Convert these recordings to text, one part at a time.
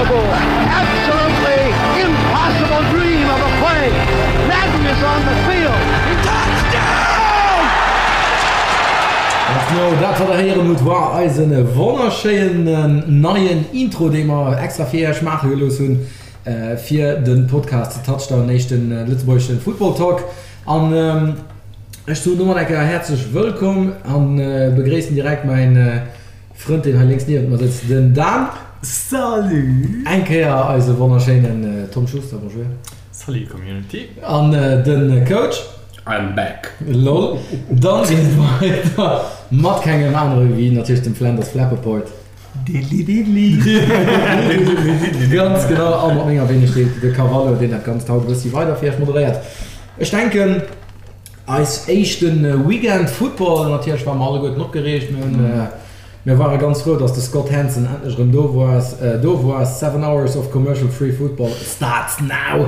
Unbelievable, absolutely impossible dream of a play. Madden is on the field. Touchdown! Ganz genau, dat wat der héieren hutt war eisen wonnerschéinen neien Intro, dee mer extra fir iech maache gelooss hunn fir de Podcast Touchdown, éischten lëtzebuergeschen Football Talk. An ech soen domat eng Kéier häerzlech wëllkomm an begréissen direkt mäin Frënd deen hei lénks niewent mer sëtzt, den Dan. Salut! Eng Kéier eise wonnerschéinen Tom Schuster, bonjour. Salut Community. An den Coach. I'm back. Lol. Dann geet et weider mat kengem anere wéi natierlech dem Flanders Flappaport. Diddli-diddli. Ganz genau, a mat menger Wenegkeet, de Cavallo, deen dat Ganzt haut e bëssi weider fir iech moderéiert. Ech denken, eis éischte Weekend Football, natierlech ware mer alleguerten opgereegt, mir hunn, mir ware ganz frou, dass de Scott Hanson endlech erëm do war, do war. Seven hours of commercial free football starts now!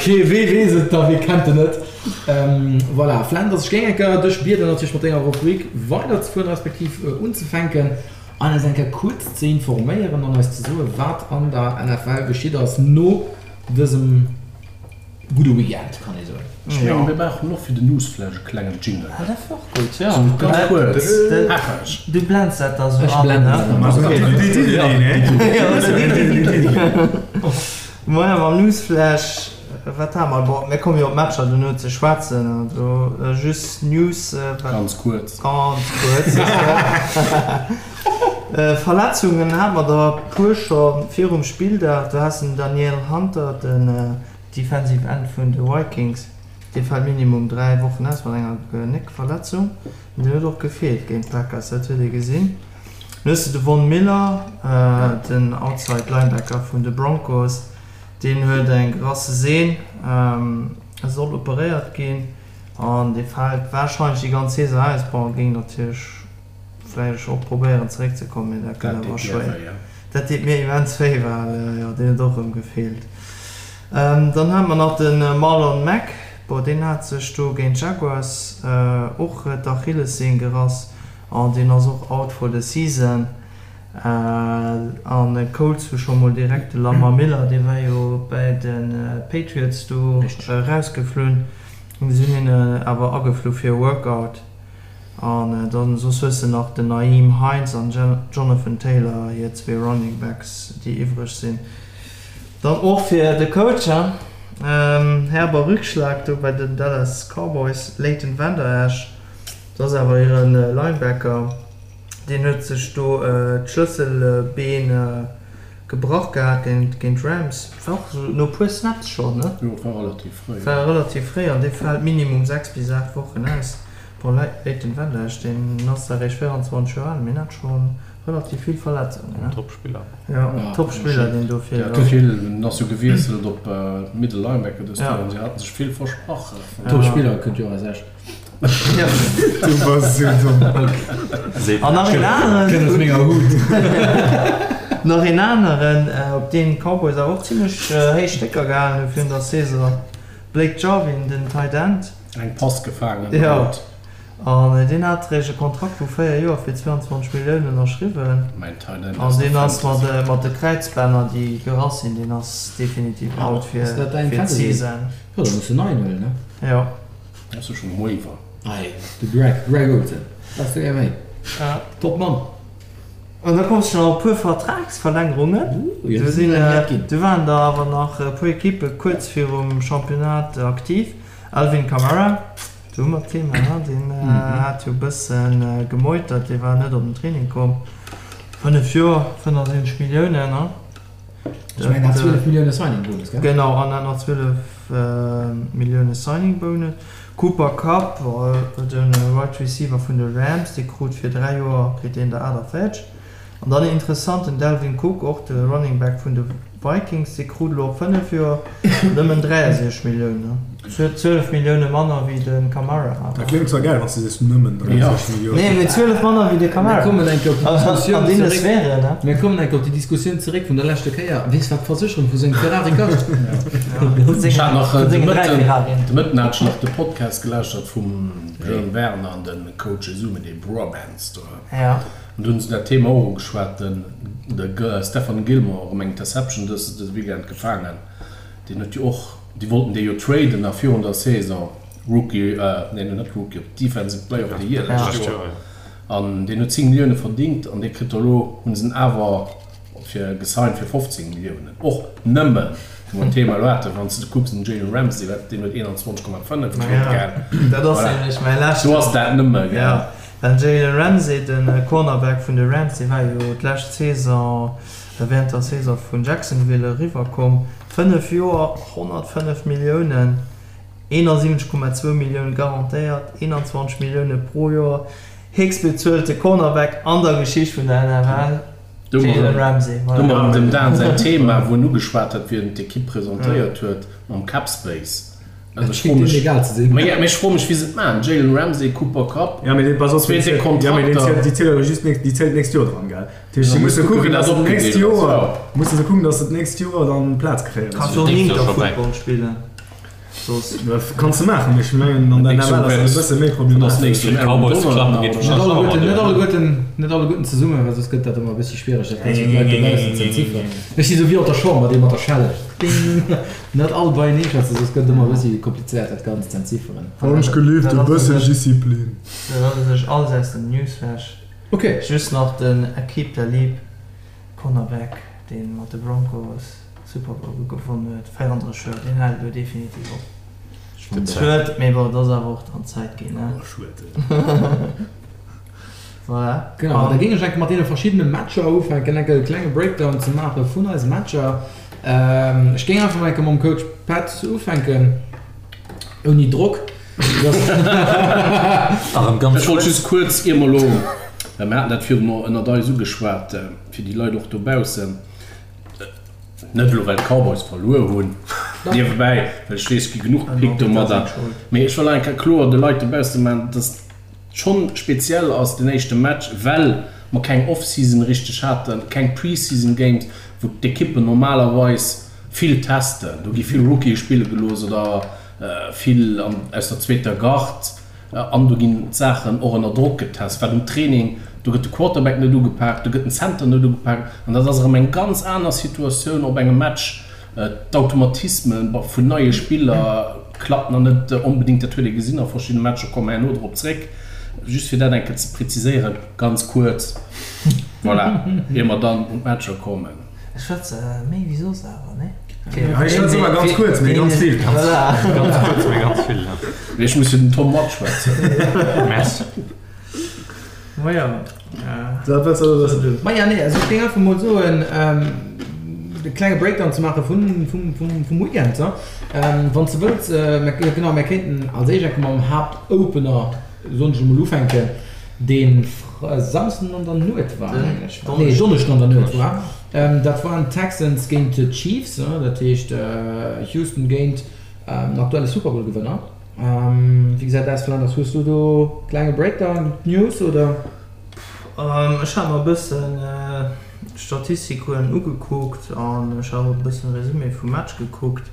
Kee, wee weess et da, wee kennt en net? Voilà, Flanders, ech géing eng Kéier dech bieden, natierlech mat denger Rubrik weiderzefueren, respektiv unzefänken an eis eng Kéier kuerz ze informéieren an eis ze soen, wat an der NFL geschitt ass no dësem gudde Weekend, kann ee soen. Ech mengen, mir brauchen och fir den Newsflash e klengen Jingle. Ah, dat wär och gutt, jo. Ganz kuerz, hackeg. Du blends dat da sou Ech an, blenden ne? dat dann an. Moien, mam Newsflash. Wat hate mer? Bon, mir komme jo op d'Matcher dono ze schwätzen. Also just News. Wat, Ganz kuerz. Ganz kuerz. Verletzungen hate mer der e puer scho virum Spilldag. Do has den Danielle Hunter, den Defensive End vun de Vikings, dee fält minimum 3 Wochen aus mat enger Genéckverletzung. An deen huet och gefeelt géint d'Packers, dat huet ee gesinn. Dann hues de de Von Miller, den Outside Linebacker vun de Broncos. Deen huet eng gerasse Sehn, e soll operéiert ginn an dee fält warscheinlech déi ganz Saison aus. Bon, e géing natierlech vläicht och probéieren zeréck ze kommen, mee dat gëtt awer schwéier. Dat deet mir immens wéi, well jo deen huet och erëm gefeelt. Dann hate mer nach de Marlon Mack, bon deen hat sech do géint d'Jaguars och d'Achillessehn gerass an deen ass och out for the season. An Colts hu scho mol direkt de Lamar Miller, dee war jo bäi de Patriots do erausgeflunn, si hunn hien awer ageflu fir e Workout. An dann soss hues de nach den Nyheim Hines an Jonathan Taylor, hir zwee Running Backs, déi iwwreg sinn. Dann och fir de Coach, herber Rückschlag do bei den Dallas Cowboys, Leighton Vander Esch, dat ass awer hire Linebacker. Deen huet sech do d'Schlësselbeen gebrach gehat géint d'Rams. War och esou no puer Snaps schonn, ne? Jo, war relativ fréi. War relativ fréi an dee fält minimum 6 bis 8 Wochen aus. Bon, Leighton Vander Esch, deen ass zwar eréischt 24 Joer al, mee en hat scho relativ vill Verletzungen, ne? Top-Spiller. Jo, Top-Spiller, deen do feelt. Der hat vill, en ass jo gewiesselt op Middle Linebacker dëst Joer an si haten sech vill versprach. Top-Spiller kënnt jo aus Esch. Du bass esou domm. An nach een aneren. Kënnt aus menger Hut. Nach een aneren, op deen d'Cowboys awer och zimlech héich Stécker gehalen hu virun der Saison, Blake Jarwin, den Tight End. Eng Pass gefaangen Jo, an deen hat eréischt e Kontrakt vu 4 Joer fir 22 Milliounen ënnerschriwwen. Mäin Tight End An aus der deen ass Fantasy. mat de Kräizbänner, déi gerass sinn, deen ass definitiv out fir Ass dat däin Fantasy? d'Season. Jo, da muss de neien huelen, ne? Jo. Ass jo schon Waiver. Ei, de Greg, Greg Olsen, wat du gär méi. Top Mann. An da kommst du nach op e puer Vertragsverlängerungen. Do sinn, do waren der awer nach e puer Ekippe kuerz virum Championnat aktiv. Alvin Kamara, do hu mer d'Thema, ne? Deen hat jo e bësse gemeutert, dee war net op den Training komm. 5 Joer, 75 Milliounen, ne? Ech mengen, hat 12 Millioune Signing Bonus, gell? Genau, an hat nach 12 Millioune Signing Bonus. Cooper Kupp, de Wide Receiver vun de Rams, dee krut fir 3 Joer kritt deen der 48. An dann interessant, den Dalvin Cook, och de Running Back vun de Vikings, dee krut elo op 5 Joer nëmmen 63 Milliounen. 12 Millioune manner wéi de Kamara. Dat kléngt zwar gäil, wann s de sees nëmmen 30 Milliounen. Nee, mee 12 manner wéi de Kamara. Mir kommen eng Kéier op déi Diskussioun An deene zeréck. Sphären, ne? Mir kommen eng Kéier op déi Diskussioun zeréck vun der leschter Kéier. Weess wat d'Versécherung vu sengem Ferrari kascht? Vun Ech hat nach sengen, vun de sengen 3 Mëtten, Ferrarien. de Mëtten hat ech nach de Podcast gelauschtert vum Jane Werner an de Coach zesummen, dee Bromance do. Ja. An do hunn se dat Thema och ugeschwat, den de Stephon Gilmore erëm eng Interception dës dës Weekend gefaangen. Deen huet jo och, déi wollten dee jo traden nach virun der Saison, Rookie, nee net Rookie of, Defensive Player of the Year lescht Joer. An deen huet 10 Millioune verdingt an dee kritt elo, hu se en awer fir gesigned fir 15 Milliounen. Och nëmmen, wou mer d'Thema elo haten, wann s de kucks den Jalen Ramsey, wat, deen huet 21,5 kritt, gell? Dat ass nämlech mäi leschten. Do ass dat nëmme, gell? Jo, den Jalen Ramsey, de Cornerback vun de Rams, dee war jo d'lescht Saison, Während der Saison vun Jacksonville eriwwer komm. 5 Joer, 105 Milliounen, 71,2 Millioune garantéiert, 21 Millioune pro Joer, héchstbezuelte Cornerback an der Geschicht vun der NFL, Jalen Ramsey. Do mer erëm dem Dan säin Thema, wou en ugeschwat huet, wéi en d'Ekipp presentéiert huet mam Cap Space. Also ech froe mech, mee ech froe mech wéi se et maachen, Jalen Ramsey, Cooper Kupp, zwee déck Kontrakter. Déi zielt awer just déi zielt d'nächst Joer dran, gell? Dat heescht, si musse kucken, datt se d'nächst Joer, musse se kucken, datt se d'nächst Joer dann Plaz kréien. Kanns jo och Inter Football spillen soss. Kanns de maachen, mee ech mengen an der NFL ass dat e bësse méi problematesch. Net alleguerten, net alleguerten zesummen, well soss gëtt dat ëmmer e bëssi schwiereg, dat Ganzt fir d'Leit dobaussen ze entzifferen. Ech si sou wéi op der Chamber, dee mat der Schelle. Ding! Net all beienee schwätzen, soss gëtt et ëmmer e bëssi komplizéiert, dat Ganzt ze entzifferen. Wann ech gelift, e bëssen Disziplin. Dat ass u sech alles aus dem Newsflash. Ok. Just nach den Aqib Talib, Cornerback, dee mat de Broncos Super Bowl gewonnen huet, 34 Joer, deen hält elo definitiv op. Schued, mee bon, et ass awer och dann Zäit ginn, ne? Voilà. Genau, da géing ech enke mat deene verschiddene Matcher ufänken, enke e klenge Breakdown ze maache vun eise Matcher. Ech géing einfach mol enke mam Coach Pat ufänken, ouni Drock. Ech wollt just kuerz, ier mer elo, well mir haten dat virun ënnert eis ugeschwat, fir déi Leit och dobaussen, net elo well d'Cowboys verluer hunn, niewebäi, well ech weess, et gi genuch gepickt domadder, mee ech wëll eng Kéier kloer de Leit dobausse maachen, dass et schonn speziell ass, den éischte Match, well mer keng Off-Season richteg haten, keng Pre-Season Games, wou d'Ekippen normalerweis vill testen, do gi vill Rookië spille gelooss oder vill aus der zweeter Garde an do ginn d'Saachen och ënner Drock getest, wat um Training, do gëtt de Quarterback net ugepaakt, do gëtt den Center net ugepaakt an dat ass erëm eng ganz aner Situatioun op engem Match. D'Automatisme vun neie Spiller klappen nach net onbedéngt, dat huet ee gesinn a verschiddene Matcher, komme mer herno drop zréck. Just fir dat eng Kéier ze präziséieren, ganz kuerz, voilà, ier mer dann un d'Matcher kommen. Ech schwätze méi wéi soss awer, nee? Hei schwätze mer ganz kuerz, mee ganz vill. Voilà. Ganz kuerz, mee ganz vill, ja. Mee ech muss fir den Tom matschwätzen. Merci. Maja. Dat wëlls de elo wëssen? Maja, nee, also ech géing einfach mol soen, e klenge Breakdown ze maache vun, vum, vum, vum Weekend, ne? Wann s de wëlls, mä genau, mär kéinten als éischt enke mam Haaptopener, soen ech emol, ufänken, dee Samsden an der Nuet war, mengen ech. Nee, Donneschden an der Nuet war. Dat waren d'Texans géint d'Chiefs, dat heescht Houston géint den aktuelle Super Bowl Gewënner. Wéi gesäit dat aus, Flanders? Hues du do klenge Breakdown, News oder? Ech hat mer e bëssen d'Statistiken ugekuckt an ech hat och e bëssen Resumé vum Match gekuckt.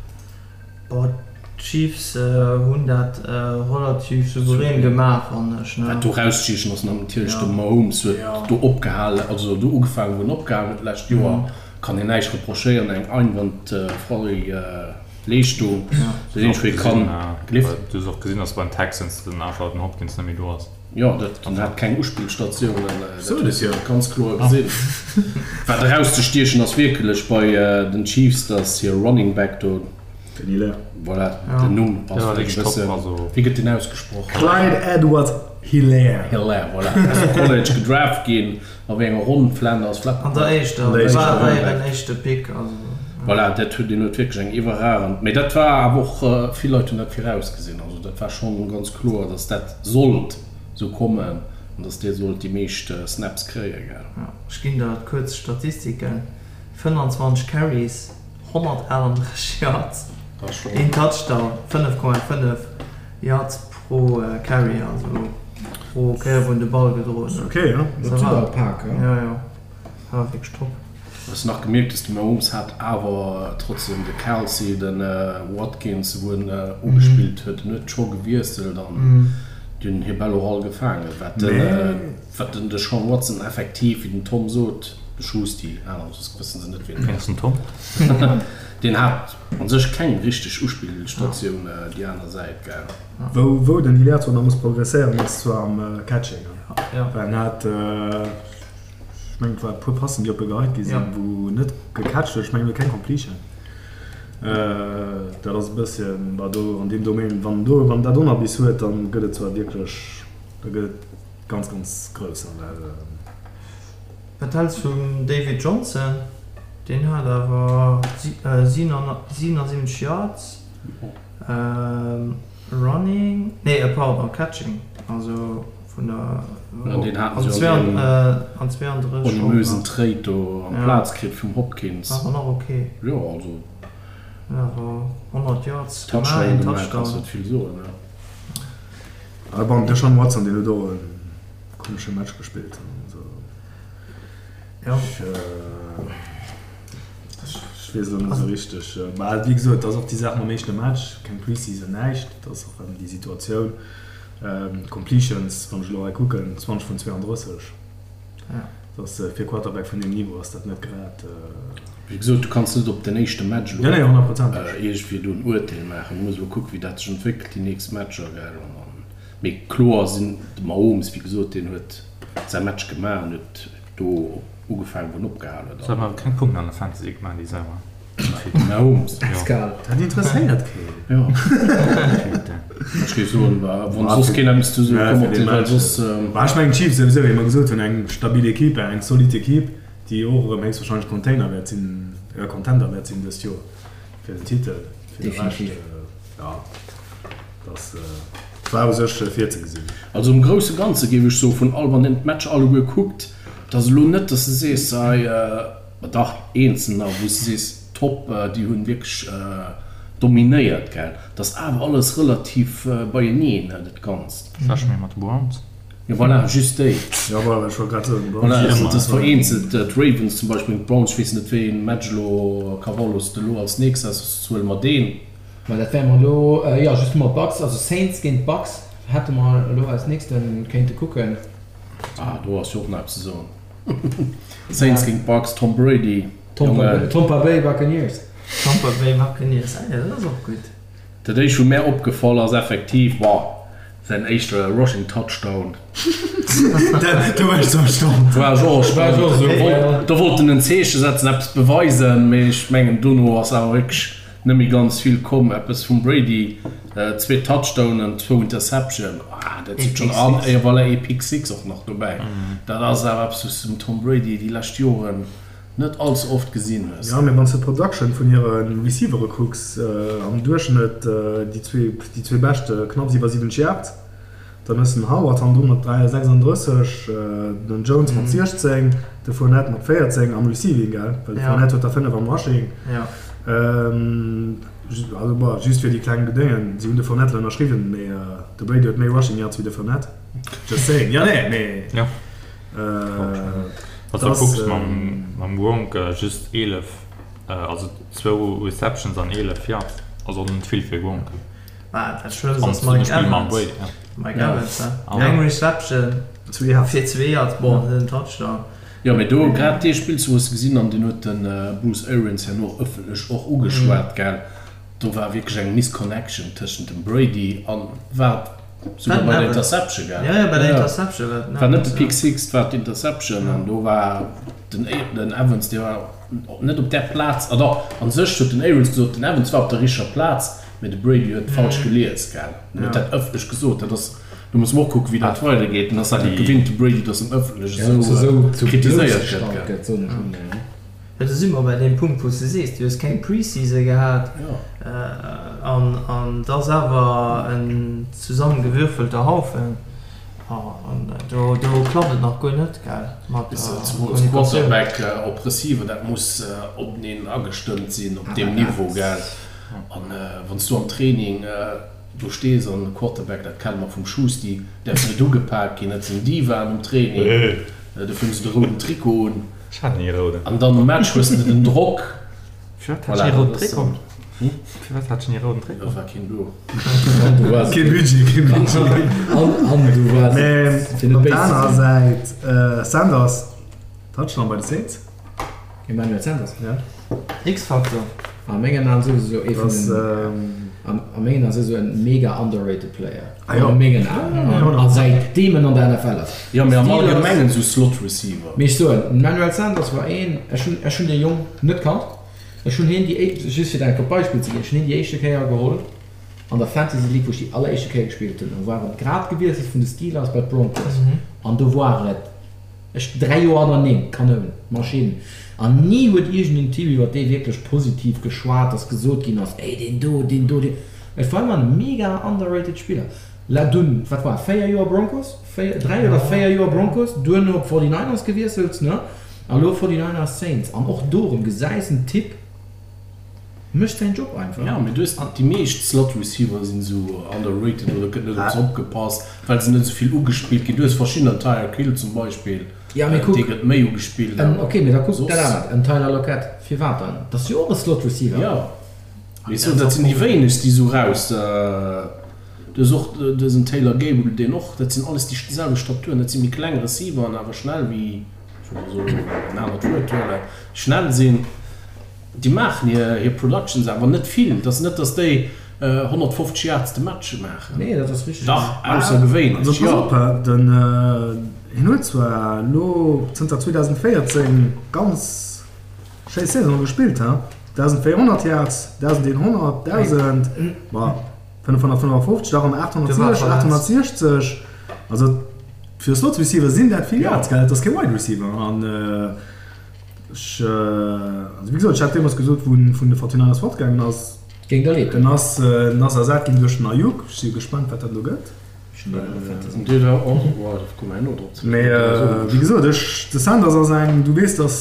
Bon, d'Chiefs hunn dat relativ souverän gemaach, fannen ech, ne? Wat do erauszeechen ass, natierlech de Mahomes huet do opgehalen, also do ugefaangen, wou en opgehalen huet d'lescht Joer. Kann een näischt reprochéieren, eng einwandfrei Leeschtung. Dat eenzegt, wou ee kann gelift. Du hues och gesinn, datt bei den Texans den einfach den Hopkins net méi do ass. Jo, dat en hat keng Uspillstatiounen, dat hues de ganz kloer gesinn. Wat erauszestiechen ass wierklech bei den Chiefs, datt hir Running Back do, Den Hilaire. Voilà, den Numm ass vläicht e bëssen, wéi gëtt deen ausgesproch? Clyde Edwards-Helaire. Helaire, voilà. Ass am College gedraft ginn. A wéi enger Ronn? Flanders, Flappen? An der éischter, dat war war hiren éischte Pick, also. Voilà, dat huet, deen huet wierklech eng iwwerragend, mee dat war awer och, vill Leit hunn dat virausgesinn, also dat war schonn ganz kloer, datt dat sollt esou kommen an datt dee sollt déi meescht Snaps kréien, gell. Jo, ech ginn der kuerz Statistiken, 25 Carries, 138 Yards. Een Touchdown, 5,5 Yards pro Carry, also pro Kéier wou en de Ball gedroen huet. Ok, jo. Dat ass awer pak, jo. Jo, jo, war wierklech top. Hues nach gemierkt dass de Mahomes hat awer trotzdem de Kelce, de Watkins wou en ugespillt huet, en huet scho gewiesselt an déi hunn hir Bäll och all gefaangen, wat den wat den Deshaun Watson effektiv wéi den Tom sot, de Schusti, aner soss wëssen se net wien et ass, den Tom, deen hat an sech keng richteg Uspillstatioun déi aner Säit, gell. Wou wou den Hilaire zwar nach muss progresséieren ass zwar am Catching, well en hat. Ech mengen et war e puer Passen déi op e geheit gi sinn, wou en net gecatcht huet. Ech mengen huet keng Completion. Dat ass e bësschen, bah do an deem Domaine, wann do, wann dat Onerbiss huet, dann gëtt et zwar wierklech, da gëtt et ganz, ganz grouss. Well. Wat häls vum David Johnson? Deen hat awer 77 Yards. Running, nee pardon, Catching, also vun der An deen haten se jo an deem ominösen Trade do amplaz kritt vum Hopkins. War awer nach ok. Jo, also. Awer 100 Yards gemaach, een Touchdown. Kanns net vill soen, ne? Ah bon, de Deshaun Watson, deen huet och e komesche Match gespillt. Also. Jo. Ech weess elo net esou richteg. Mä wéi gesot, et ass och déi Saach mam éischte Match, keng Pre-Season, näischt. Et ass och erëm déi Situatioun. Completions, wann ech elo hei kucken, 20 vun 32. Dat ass fir e Quarterback vun deem Niveau ass dat net grad. Wéi gesot, du kanns net op den éischte Match elo iergendwéi do en Urteel maachen. Du muss elo kucken, wéi dat sech entwéckelt déi nächst Matcher, gell. An dann, mee kloer sinn de Mahomes, wéi gesot, deen huet säi Match gemaach an huet do op. Ugefaangen wou en opgehal huet. Se haben awer keng Punkten an der Fantasy gemaach déi Saison. Mahomes. Pascal. Dat interesséiert keen. Jo. Ech géif soen, wann soss keen eppes ze soen komm op den well soss. Bah ech mengen d'Chiefs souwisou, wéi mer gesot hunn, eng stabil Equipe, eng solid Equipe, déi och erëm héchstwahrscheinlech Container wäert sinn, Contender wäert sinn dëst Joer fir den Titel. Fir de Rescht, jo, dass. War u sech virzegesinn. Also am grousse Ganze géif ech soen, vun all, wann een d'Matcher alleguer kuckt, et ass elo net, dass de sees, hei, ma dach, eenzelner, wou s de sees, top, déi hunn wierklech dominéiert, gell. Et ass awer alles relativ beieneen, dat Ganzt. Vläch méi mat de Browns. Jo, voilà, just déi. Jo, voilà, ech wollt grad soen, d'Browns. Voilà, et ass vereenzelt, d'Ravens zum Beispill, d'Browns, ech weess net, wéi ee Match elo, Carvalho, s de elo als nächst has, soss huele mer deen. Ma dat wäre mer elo, jo, justement d'Bucks, also Saints géint d'Bucks hätte mer elo als nächste kéinte kucken. Ah, do ass jo och nach eppes ze soen. Saints géint d'Bucks, Tom Brady, Jongen. Tompa Bay Buccaneers. Tampa Bay Buccaneers, ah jo, dat ass och gutt. Dat éischt wou mär opgefall ass effektiv, boah, säin éischte Rushing Touchdown. Do war ech zwar erstaunt. War ech och erstaunt. Do wollt en en Zeeche setzen, eppes beweisen, mee ech mengen dono ass awer wierklech Net méi ganz vill komm, eppes vum Brady, zwee Touchdownen, zwou Interception, ah dat sinn schonn, an et voilà ee Pick Six och nach dobäi. Dat ass awer eppes wou s de dem Tom Brady déi lescht Joren net all ze oft gesinn hues. Jo, mee wann s de d'Production vun hire Receivere kucks, am Duerchschnëtt déi zwee beschte knapps iwwer 70 Yards. Dann hues de den Howard hannendru mat 36, den Jones mat 16, de Fournette mat 14 am Receiving, gell? Well de Fournette huet der 5 am Rushing. Also bon, just fir déi kleng Bedéngen, si hunn de Fournette elo ënnerschriwwen, mee de Brady huet méi Rushing Yards wéi de Fournette. Just saying. Jo, nee, mee. Jo. Wann s de kucks mam Gronk, just 11, also zwou Receptions an 11 Yards, also net vill fir Gronk. Ah, dat Schlëmmst ass Mike Evans. Mike Evans, he? Eng Reception fir zwee Yards, bon, net en Touchdown. Jo, mee do grad dee Spillzuch hues de gesinn an deen huet de Bruce Arians herno ëffentlech och ugeschwat, gell? Do war wierklech eng Misconnection tëschent dem Brady an, war et souguer bei der Interception, gell? Jo, jo, bei der Interception war et den Evans. War net de Pick Six, et war d'Interception an do war den Evans, dee war net op där Plaz, ah dach, a sech huet den Arians gesot, den Evans war op der richteger Plaz, Mee de Brady huet falsch gelies, gell? En huet dat ëffentlech gesot. Dat ass, do musse mer och kucken, wéi dat weidergeet. En ass dat net gewinnt, de Brady, datt en ëffentlech esou kritiséiert gëtt, gell? Jo, do si mer bei deem Punkt, wou s de sees, du hues keng Pre-Season gehat an et ass awer en zesummegewürfelter Haufen an do klappt et nach guer net, gell, mat der Kommunikatioun. Quarterback op Receiver, dat muss openeen agestëmmt sinn op deem Niveau, gell? An wann s du am Training do stees an de Quarterback, dat kenne mer vum Schusti, däerf net ugepak ginn, dat sinn Divaen um Training, dofir hu se de rouden Trikot un. Ech hat ni e rouden. An dann um Match hues de den Drock. Firwat hat ech ni e rouden Trikot? Firwat hat ech ni e rouden Trikot? Do war keen do. Kee Budget, kee Budget. An du waars Mä fir net op der béis ze anerer sinn. Säit, Sanders, Touchdown bei de Saints. Emmanuel Sanders? Ja. X-Factor. A mengen Aen souwisou ee vun Das, den, ähm, an a mengen Aen souwisou en mega underrated Player. Ah jo. A mengen Aen. A säitdeem en an der NFL ass. Jo, mee am Steelers. Allgemengen esou Slot Receiver. Mee ech soen, den Emmanuel Sanders war een, ech hunn, ech hunn dee Jong net kannt. Ech hunn hien déi éischt, just fir der enk e Beispill ze ginn, ech hunn hien déi éischte Kéier geholl an der Fantasy League, wou ech déi alleréischte Kéier gespillt hunn. Do war et grad gewiesselt vun de Steelers bei d'Broncos an do war et, Ech 3 Joer hannerneem, Kanoun, Maschinn. An ni huet iergend en Team iwwer dee wierklech positiv geschwat, dass gesot ginn ass, ey deen do, deen do, deen. Et war ëmmer en mega underrated Spiller. La dunn, wat war et, 4 Joer Broncos? 4, 3 oder 4 Joer Broncos, duerno op 49ers gewiesselt, ne? A lo 49ers, Saints. An och do erëm gesäis en Typ mécht säin Job einfach. Jo, mee du hues déi meescht Slot Receiver sinn esou underrated oder gëtt net op se opgepasst, well se net esou vill ugespillt ginn. Du hues verschiddener, Tyreek Hill zum Beispill, Ja, mee kuck, dee gëtt méi ugespillt, en, awer ok, mee da kuck dat soss. anert, en Tyler Lockett, firwat dann? Dat ass jo och e Slot Receiver. Jo, mee ech soen, dat sinn déi wéinegst, déi esou raus. Du hues och dësen Taylor Gabriel, deen och, dat sinn alles déi selwecht Staturen, dat si méi kleng Receiveren, awer schnell wéi, ech wëll mol soen, en anert Wuert huelen, schnell sinn. Déi maachen hir hir Productions awer net vill. Et ass net, datt déi 150 Yards de Match maachen. Nee, dat ass richteg. Dach, aussergewéinlech, Also pass jo. op, den hien huet zwar elo zënter 2014 ganz schéi Saisone gespillt, he, 1.400 Yards, 1.100, 1.000, ma 555, da rëm 860, 860. Also fir e Slot Receiver sinn dat vill Yards, gell? Et ass kee Wide Receiver an. Ech, also wéi gesot, ech hat deemools gesot, wou en vun de Fortinanders fortgaangen ass, Géing der leed en doen. ass, en ass ersat ginn duerch den Aiyuk. Ech si jo gespannt, wat dat elo gëtt. Ech hunn deen och Fantasy. Dee war och, oh, da komme mer herno drop ze Mee wéi gesot, ech, de Sanders ass eng, du weess, dass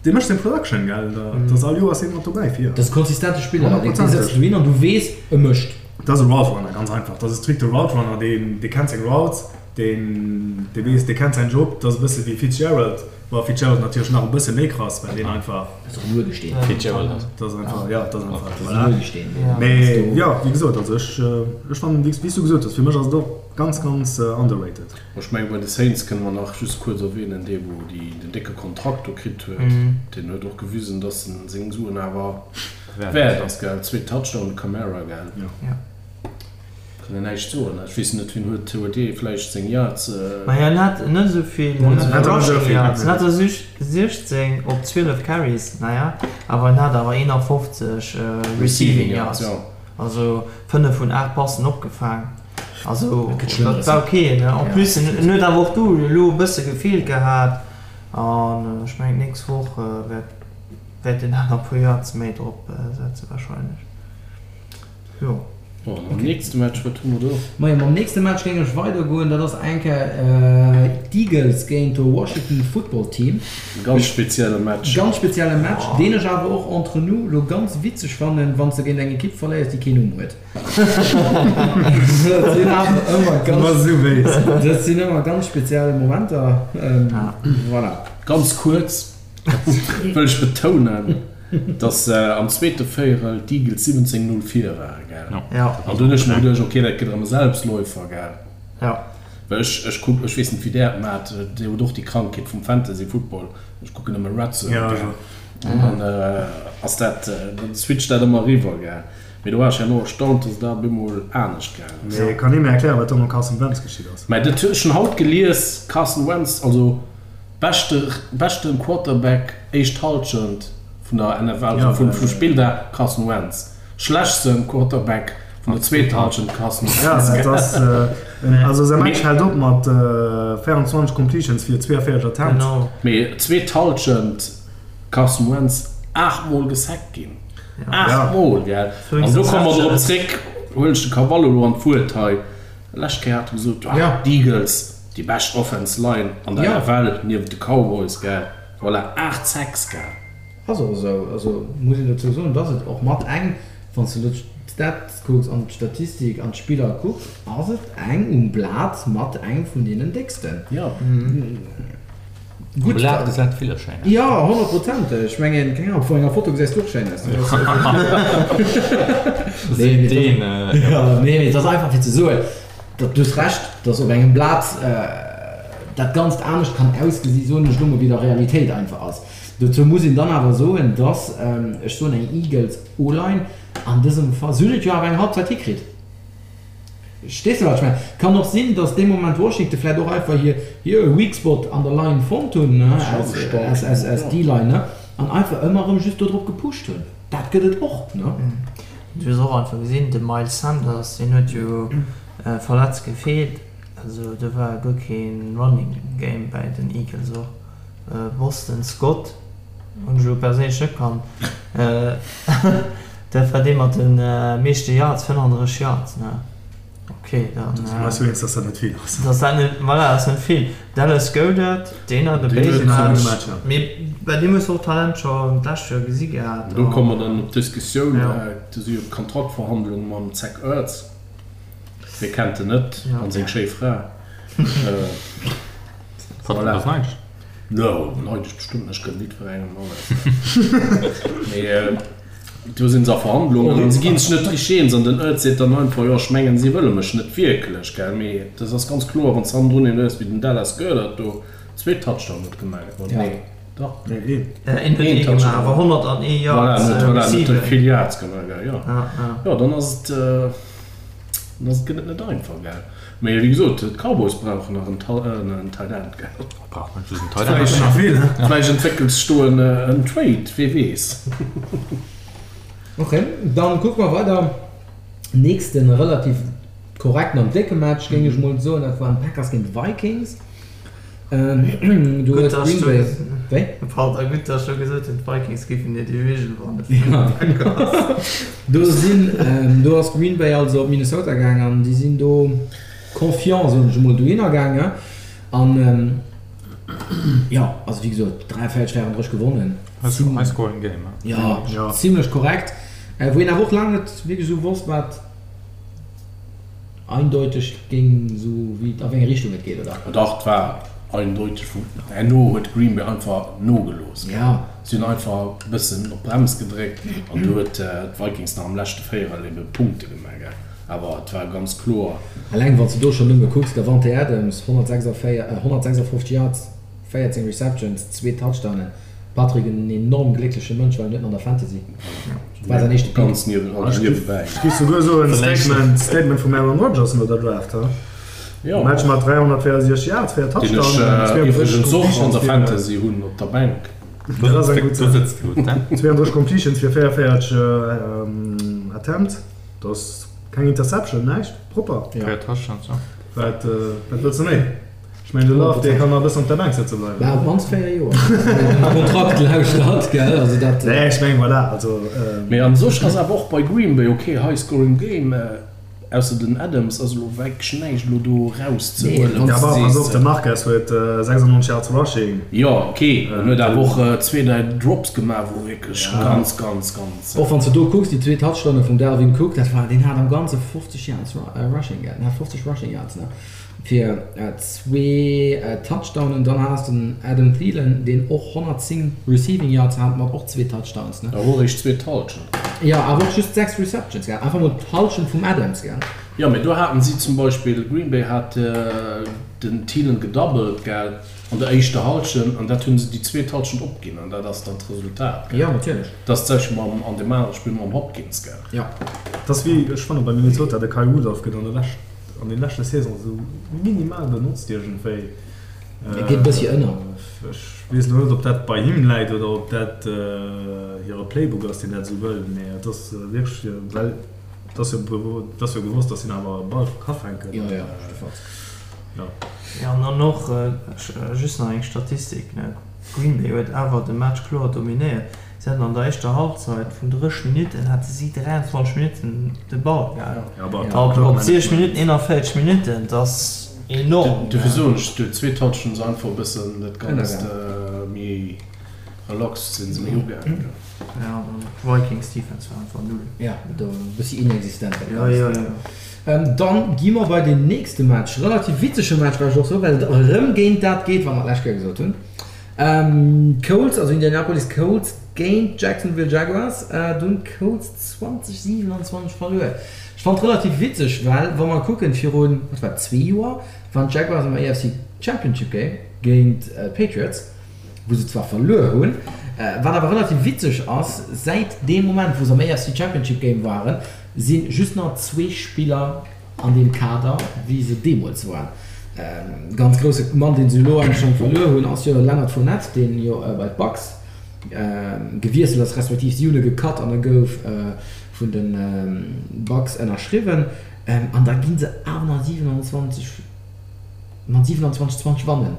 dee mécht seng Production, gell, dat ass all Joer ass hien mat dobäi fir. Dat ass e konsistente Spiller, dee Honnertprozenteg. setzt du hin an du weess, e mécht. Dat ass e Route Runner, ganz einfach. Dat ass e strikte Route Runner, deen, dee kennt seng Routes, deen, dee weess, dee kennt säin Job. Dat ass e bësse wéi Fitzgerald. Bon, Fitzgerald natierlech nach e bësse méi krass, well deen einfach. Dat ass och en Urgesteen. Fitzgerald ass. Dat ass einfach, ja, dat ass einfach. Dat ass en Urgesteen. Mee jo, wéi gesot, also ech, ech fannen, wéi s du gesot hues, fir mech ass et och ganz, ganz underrated. Ech mengen, bei de Saints kënne mer nach just kuerz erwähnen, dee wou déi den décke Kontrakt do kritt huet, deen huet och gewisen, datt en seng Suen awer wäert ass, gell? Zwee Touchdown, de Kamara, gell? Jo. Kann een näischt soen. Ech weess net, wien huet huet dee vläicht seng Yards. Ma hien hat net esou vill Rushing Yards, hien hat der 16 op 12 Carries, naja, awer hien hat awer 51 Receiving Yards, also 5 vun 8 Passen opgefaang. Also dat war ok. En plus en huet awer och do elo e bësse gefeelt gehat an ech mengen d'nächst Woch wäert wäert en aner puer Yards méi drop setze warscheinlech. Jo. Bon, mam nächste Match, wat hu mer do? Majo, mam nächste Match géing ech weidergoen. Dat ass eng Kéier d'Eagles géint de Washington Football Team. Ganz spezielle Match. Ganz spezielle Match, deen ech awer och entre nous lo ganz witzeg fannen, wann s de géint eng Ekipp verléiers, déi keen Numm huet. Dat sinn awer ëmmer ganz, dat sinn ëmmer ganz speziell Momenter. Voilà. Ganz kuerz wëll ech betounen, dass am zweete Véierel d'Eagles 17, 0 vir waren, gell? Ja. An dunn hunn ech mer geduecht, okay, dat gëtt erëm e Selbstläufer, gell? Ja. Well ech, ech kuck, ech weess net, wéi där et maacht, Dir hutt och déi Krankheet vum Fantasy Football, ech kucken ëmmer Red Zone, Ja, gell? ech och. An dann ass dat, dann switcht dat ëmmer eriwwer, gell? Mee do war ech herno erstaunt, dass et da op eemol anescht gaangen ass. Mee kann ee mir erklären, wat do mam Carson Wentz geschitt ass? Mä dat hunn ech schonn haut gelies, Carson Wentz, also Beschte beschten Quarterback éischt Halschent vun der NFL, also vum vum Spilldag, Carson Wentz. Schlechtsten Quarterback vun der zweeter Halschent, Carson Ja, Wentz. dat ass also säi Match hält op mat 24 Completions fir 42 Attempts. Genau. Mee zweet Halschent Carson Wentz 8 mol gesackt ginn. 8 mol, gell? An do komme mer drop zréck, huelen ech de Cavallo elo an d'Wuert hei. Lescht Kéier hat e gesot, ah, d'Eagles, déi bescht Offense Line an der NFL niewent de Cowboys, gell? Voilà, 8 Sacks, gell? Ass och esou. Also muss een dozou soen, dass et och mat eng. Wann s de elo d'Stats kucks an d'Statistik an d'Spiller kucks, ass et eng um Blat mat eng vun deenen décksten. Jo. Um Blat gesäit villes schéin aus. Jo, honnertprozenteg. Ech mengen, keng Ahnung, vu enger Foto gesäis du och schéin aus. Nee, mee et ass einfach fir ze soen, datt, du hues Recht, datt op engem Blat dat Ganzt anescht kann ausgesi, soen ech elo mol, wéi et a Realitéit einfach ass. Dozou muss een dann awer soen, datt, ech soen eng Eagles O-Line an dësem Fall, si hunn et jo awer eng Halbzeit hikritt. Verstees de wat ech mengen? Kann och sinn, datt dee Moment Washington vläicht och einfach hir hir Weak Spot an der Line fonnt hunn, als D-Line, ne, an einfach ëmmer erëm just do drop gepusht hunn. Dat gëtt et och, ne? Du hues och einfach gesinn, de Miles Sanders, deen huet jo verletzt gefeelt, also do war guer kee Running Game bäi den Eagles och. Boston Scott hunn ech elo perséinlech net kannt. Dat war dee mat de meeschte Yards, 35 Yards, ne? Ok, dann. Do si mer eis jo eens, dass dat net vill ass. Dass dat net, voilà, ass net vill. Dallas Goedert, deen hat e béise Match, mee bei deem hues de och Talent scho d'lescht Joer gesi gehat. Do komme mer dann op d'Diskussioun, do si jo d'Kontraktverhandlunge mam Zach Ertz, wie kennt en net, an seng schéi Fra. Voilà. Ass neidesch? No, neidesch bestëmmt net, ech gënn jiddwerengem alles. Mee do sinn se a Verhandlungen an se ginn sech net richteg eens an den Oertz seet dann einfach, jo ech mengen si wëlle mech net wierklech, gell. Mee dat ass ganz kloer, wann s de hannendrun een hues wéi den Dallas Goedert do zwee Touchdown huet gemaach, oder? Nee, dach. Nee, een. Een huet ee gemaach, awer 101 Yards receiving. Voilà, en huet vill Yards gemaach, gell, jo. Jo, dann ass et, dann ass et, gëtt et net einfach, gell. Mee wéi gesot, d'Cowboys brauchen nach en Tight End, gell? Brauch net just en Tight End. Vläicht entwéckelt sech do en Trade, wee weess. Ok, dann kucke mer weider. Nächsten relativ korrekten an décke Match, géing ech mol soen, dat waren d'Packers géint d'Vikings. Do huet Green Bay, wéi? Pardon, gutt dass ech scho gesot hunn, d'Vikings géifen hir Division wannen vun de Packers. Do sinn, do ass Green Bay also op Minnesota gaang an déi sinn do confiant, soen ech emol, dohinner gaangen. An jo, also wéi gesot, 43, 34 gewonnen. High scoring game, he? Jo, zimlech korrekt. Wou een awer och laang net wierklech esou wosst, wat. Eindeuteg géing esou wéi a wéi eng Richtung et geet, oder? Dach, et war eindeuteg. Vun herno huet Green Bay einfach nogelooss. Si hunn einfach e bëssen op d'Brems gedréckt an du huet d'Vikings nach am leschte Véierel ebe Punkte gemaach. Awer et war ganz kloer. Eleng wann s de do schonn nëmme kucks, Davante Adams, 156 Yards, 14 Receptions, zwee Touchdownen. Patrick en enorm gléckleche Mënsch, well en huet en an der Fantasy. War säin éischte Pick. Ganz niewebäi. Ech géif souguer soen, Statement, Statement vum Aaron Rodgers no der Draft, ha? Jo. Match mat 364 Yards, 4 Deen Touchdowns, ech 32 iwwregens och an Completions der fir, Fantasy hunn op der Bänk. Dat ass eng gutt Do Saach. sëtzt de gutt, he? 32 Completions fir 44 Attempts, dat ass keng Interception, näischt, propper. 4 Touchdowns, jo. Wat, wat wëlls de méi? Ech mengen de Love dee kann nach e bëssen op der Bänk sëtze bleiwen. Bah, op d'mannst 4 Joer. Den Kontrakt lauschtert, gell, also dat. Nee, ech mengen voilà, also. Mee an sech ass awer och bei Green Bay ok, high scoring game, ausser den Adams ass elo wierklech näischt elo do erauszehuelen. Ja, bah, pass op, de Marquez huet 96 Yards rushing. Jo, ok, en huet awer och zwee, dräi Drops gemaach, wou wierklech ganz, ganz, ganz. Och wann s de do kucks, déi zwee Touchdowne vum Dalvin Cook, dat war, deen hat am Ganze 50 Yards rushing, gell, en hat 50 rushing Yards, ne. Fir zwee Touchdownen. Dann has den Adam Thielen, deen och 110 Receiving Yards hat, mat och zwee Touchdowns, ne? Awer och eréischt zwee d'Hallschent. Jo, awer och just 6 Receptions, gell? Einfach mol d'Hallschent vum Adams, gell? Jo, mee do haten si zum Beispill, Green Bay hat den Thielen gedoubled, gell, an der éischter Hallschent, an dat hu se déi zweet Hallschent opginn, an dat ass dann d'Resultat, gell? Jo, natierlech. Dat ass d'selwecht mam, an deem anere Spill mam Hopkins, gell? Jo. Et ass wéi, ech fannen, bei Minnesota, de Kyle Rudolph gëtt an der Lescht, an den leschte Saison esou minimal benotzt iergendwéi. E geet e bëssi ënner. Ech weess elo net, ob dat bei him läit oder ob dat hire Playbook ass, deen dat esou wëll, mee et ass wierklech, well et ass jo, et ass jo gewosst, datt hien awer e Ball ka fänken. Jo, jo, jiddefalls. Jo. Jo, an dann och just nach eng Statistik, ne, Green Bay huet awer de Match kloer dominéiert. Si haten an der éischter Halbzeit vun 30 Minutten hate si 23 Minutten de Ball gehat. Op 60 Minutten 41 Minutten, dat ass enorm. Dofir soen ech, déi zweet Halschent ass einfach e bëssen dat Ganzt méi. Relax sinn se méi ugaangen. Ja, Vikings Defense war einfach null. Ja, do e bëssi inexistent dat Ganzt. Ja, ja, ja. Dann gi mer bei den nächste Match, relativ witzege Match war ech och sou, well et erëm géint dat geet, wat mer d'lescht Kéier gesot hunn. Colts, also Indianapolis Colts géint Jacksonville Jaguars. Do hunn d'Colts 20, 27 verluer. Ech fand relativ witzeg, well wa mer kucken, virun, wat war et, zwee Joer waren d'Jaguars am AFC Championship Game géint d'Patriots. wou se zwar verluer hunn, wat awer relativ witzeg ass, säit deem Moment wou se am AFC Championship Game waren, si just nach zwee Spiller an deem Kader wéi se deemools waren. Ganz grousse Mann deen se elo eigentlech schonn verluer hunn ass jo Leonard Fournette, deen jo bei d'Bucks gewiesselt ass, respektiv si hunn e gecut an e gouf vun de Bucks ënnerschriwwen an da gi se awer nach 27 mat 27, 20 wannen.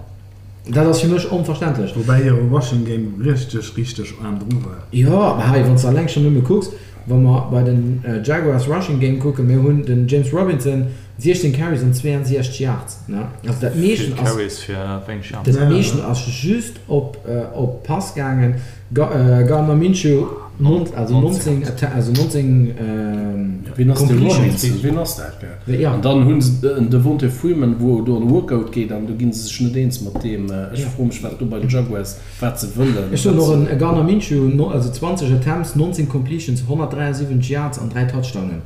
Dat ass fir mech onverständlech. Woubäi hire Rushing Game richteg, richteg aarm dru war. Jo, mä hei, wann s de alleng schonn nëmme kucks, wa mer bei den Jaguars Rushing Game kucken, mir hunn den James Robinson, 16 Carries an 62 Yards, ne? Also dat meeschten Vill ass, Carries fir wéineg Yards. dat meeschten ass just op, op Pass gaangen. Gardner Minshew, also 19, also 19 Wien ass de Completions. Robinson? Wien ass dat? Gell? An dann hunn se en Devonta Freeman, wou do an Workout geet an do gi se sech net eens mat deem. Ech froe mech, wat do bei den Jaguars, wat se wëllen. Ech soen och en Gardner Minshew, also 20 Attempts, 19 Completions, 173 Yards an 3 Touchdownen.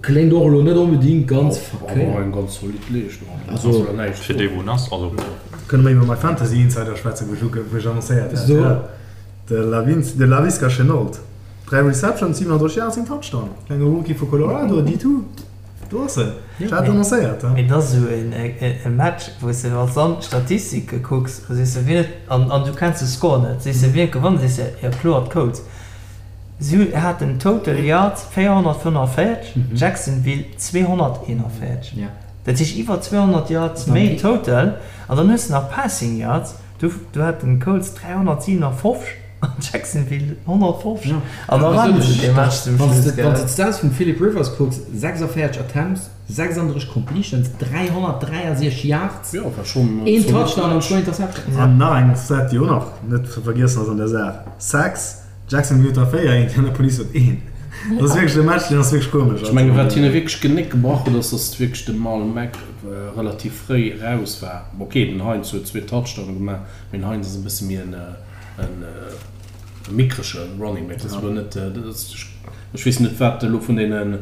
Kléngt och elo net onbedingt ganz verkéiert. Awer eng ganz zolidd Leeschtung. Also fir dee wou en ass, also. Kënne mer iwwer mäi Fantasy Insider schwätzen, wou ech wou ech annoncéiert hat? So. De Lavins, de Laviska Shenault. 3 Receptions, 37 Yards, een Touchdown. Klenge Rookie vu Colorado, D2. Do ass en. Ech hat et annoncéiert, he. Mee et ass esou e Match, wou s de, wann s de an d'Statistike kucks, da sees de, wien huet, an an du kenns de Score net, sees de, wien huet gewonnen, sees de, jo kloer d'Colts. Si haten total Yards 445, Jacksonville 241. Dat heescht iwwer 200 Yards méi total. An dann hues de nach Passing Yards, do do haten d'Colts 357 an Jacksonville 150. An da waren se dee Match zum Schluss, gell. Wann s de d'Stats vum Philip Rivers kucks, 46 Attempts, 36 Completions, 363 Yards, een Touchdown an zwou Interceptions. An nach eng Stat, déi och nach net ze vergiessen ass an der Saach, Sacks, Jacksonville huet der 4, Indianapolis huet een. Dat ass wierklech e Match, deen ass wierklech komesch. Ech mengen, wat hinne wierklech d'Genéck gebrach huet, ass, datt wierklech de Marlon Mack relativ fréi eraus war. Ok, den Hines huet zwee Touchdowne gemaach, mee den Hines ass e bësse méi en mickrege Running Back. Dat ass elo net, ech weess net, wat elo vun deenen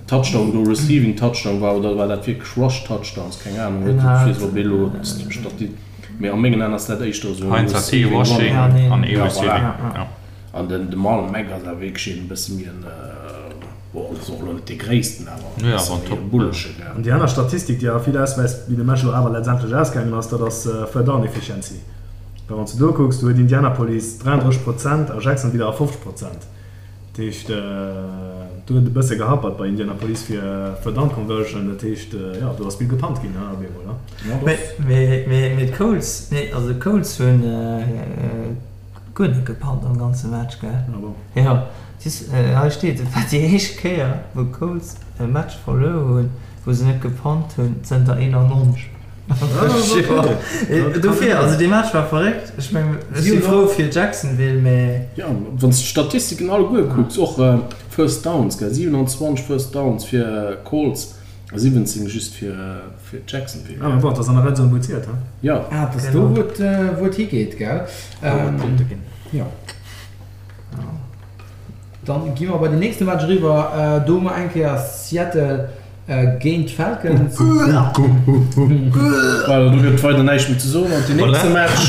Touchdown do Receiving Touchdown war oder war dat wierklech Rush Touchdowns, keng Anung. Ech weess op elo d'Stati. Mee a mengen Aen ass dat éischter esou en Heinz hat ee Receiving Rushing Running. an ee Ja, Receiving, voilà. ja. An den de Marlon Mack ass awer wierklech een e bësse méi en, bon, ass och elo net dee gréissten, awer e Nee, bësse awer en méi e Top. bullege, gell. An déi aner Statistik, déi awer vill ausweist, wéi de Match elo awer letztendlech ausgaangen ass, dat ass Third Down Efficiency. Well wann s de do kucks, do huet Indianapolis 33 Prozent a Jacksonville 51 Prozent. Dat heescht, do huet et e bësse gehappert bei Indianapolis fir Third Down Conversion. Dat heescht, jo, do ass vill gepunt ginn op eemol. Mee d'Colts, nee, also d'Colts hunn guer net gepunt am ganze Match, gell? Ah bon? Jo, siehst, hei steet, et war déi éischt Kéier, wou d'Colts e Match verluer hunn, wou se net gepunt hunn, zënter 91. Dofir, also dee Match war verréckt. Ech meng, ech si frou fir Jacksonville, mä. Jo, wann s de d'Statistiken alleguer kucks, och First Downs, gell, 27 First Downs fir Colts a 17 just fir Jacksonville. Ah, mä bon, et ass an der Red Zone, wou et zielt, he? Jo. Ah, et ass do, wou et, wou et higeet, gell? Wou et Punkte ginn. Jo. Dann gi mer bei den nächste Match eriwwer. Do hu mer eng Kéier Seattle Géint d'Falcons. Voilà, do gëtt weider näischt méi ze soen. An den nächste Match.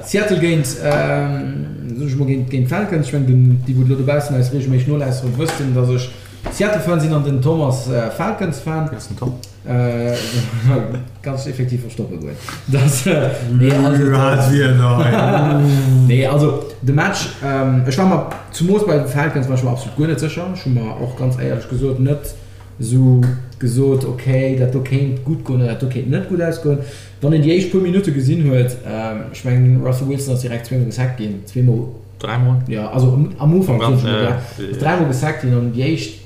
Seattle géint, soen ech mol, géint d'Falcons. Ech mengen, déi wou elo dobaussen eis reegelméisseg nolauschteren, wëssen, datt ech Seattle-Fan sinn an den Tom ass Falcons-Fan. Wéi ass den Tom? Kanns dech effektiv verstoppe goen. Das, nee, also, nee, also de Match, ech war mer zumoos bei de Falcons war ech mer absolut guer net sécher. Ech hu mer och ganz éierlech gesot net esou gesot, okay, dat do kéint gutt goen oder dat do kéint net gutt ausgoen. Wann een déi éischt puer Minutte gesinn huet, ech mengen Russell Wilson ass direkt zweemol gesackt ginn, zweemol, Dräimol? Jo, also am Ufank, soen ech mol, ass dräimol gesackt ginn an déi éischt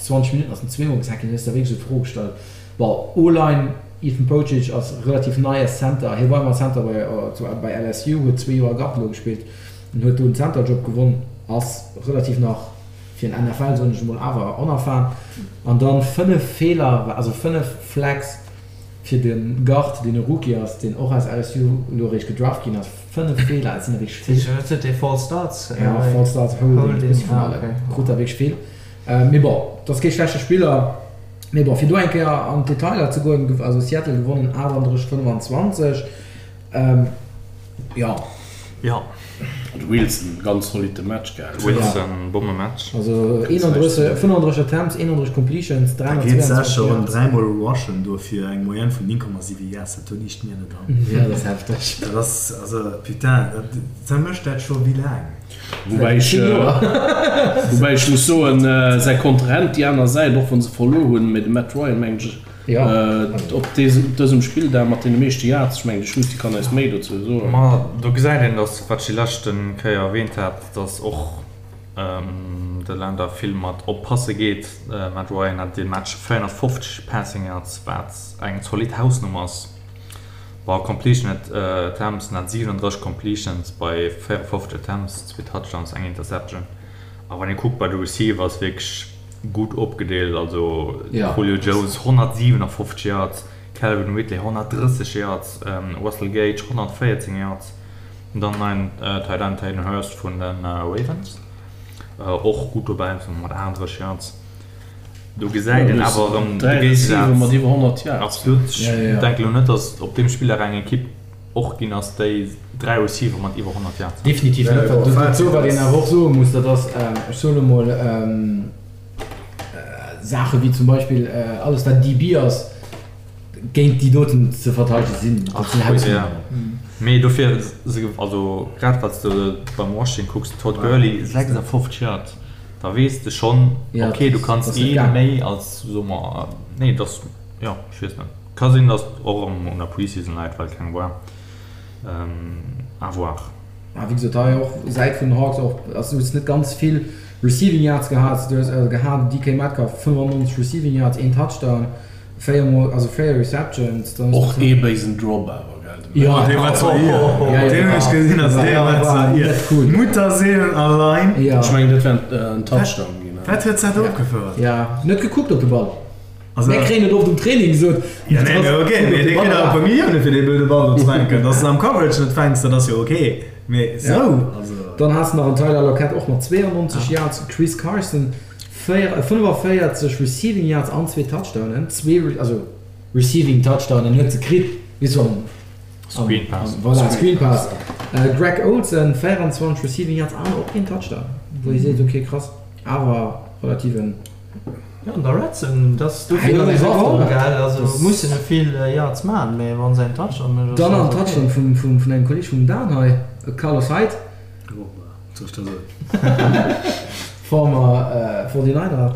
20 Minutten ass en zweemol gesackt ginn, hues der wierklech esou d'Fro gestallt, bon, O-Line, Ethan Pocic ass relativ nei als Center, hie war ëmmer Center bei bei LSU, huet zwee Joer Guard elo gespillt an huet do den Center-Job gewonn, ass relativ nach fir en NFL, soen ech emol, awer onerfahren. An dann 5 Feeler, also 5 Flags fir de Guard, deen e Rookie ass, deen och aus LSU elo eréischt gedraft ginn ass. 5 Feeler, dat sinn der wierklech vill. Huet huet dee False Starts? Ja, False Starts, Holding, e bëssi vun allem. Krut der wierklech vill. Mee bon, dat ass kee schlechte Spiller. Mee bon, fir do eng Kéier an d'Detailer ze goen, also Seattle gewonnen 38, 25. Jo. Jo. De Wilson, ganz zolitte Match gehat. Wilson, Bommematch. Also 31, 35 Attempts, 31 Completions, Da geet 322 sécher erëm Yards. dräimol rushen do fir eng Moyenne vun 9,7 Yards, dat do liicht mir net an. Jo, dat ass hefteg. Dat ass, also putain, dat, dat mécht dat scho wéi laang? Woubäi ech, woubäi ech muss soen, säi Kontrahent déi aner Säit, och wa se verluer hunn, mee de Matt Ryan, mengen ech, op dësem Spilldag mat deene meeschte Yards, ech mengen de Schusti kann eis méi dozou soen. Ma do gesäit een, datt, wat ech déi leschte Kéier erwähnt hat, datt och de Länder vill mat oppasse geet. Matt Ryan hat dee Match 450 Passing Yards, wat eng zolidd Hausnummer ass. Bon, Completion Attempts, en hat 37 Completions bei 54 Attempts, zwee Touchdowns, eng Interception. A wann ee kuckt bei de Receivers, wierklech gutt opgedeelt, also Julio Jones 157 Yards, Calvin Ridley 130 Yards, Russell Gage 114 Yards, an dann neien Tight End Hayden Hurst vun de Ravens och gutt dobäi mat 38 Yards. Do gesäit een awer erëm de Géigesaz. Absolut. Ech denken elo net, datt op deem Spilldag eng Ekipp och ginn ass, déi 3 Receiver mat iwwer 100 Yards hat. Definitiv net. Dozou, wat een awer och soe muss, dat ass, ech soen emol, Saache wéi zum Beispill alles wat DB ass, géint déi doten ze verteidege sinn, dat sinn Hausnummeren. Mee dofir, also grad wat s de beim Washington kucks, Todd Gurley 56 Yards, da weess de schonn, ok, du kanns ee méi als, soe mer, nee, dass, jo, ech weess net. Ka sinn, dass och erëm un der Preseason läit, well keng war. À voir. A wéi gesot, hei och Säit vun den Hawks och, also du hues net ganz vill Receiving Yards gehat, du hues gehat DK Metcalf 95 Receiving Yards, een Touchdown, 4 mol, also 4 Receptions. Dann och ee béisen Drop awer, gell? Jo, dee war zwar ier, deen hunn ech gesinn, also dee war zwar ier. Mutterseelen allein. Ech mengen, dat wär en Touchdown ginn. Wat huet dat opgefouert? Jo, net gekuckt op de Ball. Mir kréien et oft um Training gesot. Ja, nee, mee ok, mee dir kritt awer e puer Millioune fir dee blöde Ball do ze fänken. Dass de en am Coverage net fänks, dat ass jo ok, mee esou, also. Dann has de nach en Tyler Lockett och mat 92 Yards, Chris Carson 45 Receiving Yards an zwee Touchdownen, zwee, also Receiving Touchdownen huet se kritt, weess du, am, Screen Pass. Voilà, Screen Pass. Greg Olsen 24 Receiving Yards an och een Touchdown, wou ee seet, ok krass, awer relativ en. Jo, an der Red Zone, dass dofir ass se geholl, gell? Also mussen e vill Yards man, mä wann se en Touchdown mécht, ass Dann alles an ok. Touchdown vum vun engem Kolleg vum Dan hei, Carlos Hyde. Oh, wat soll ech da soen? Former 49er.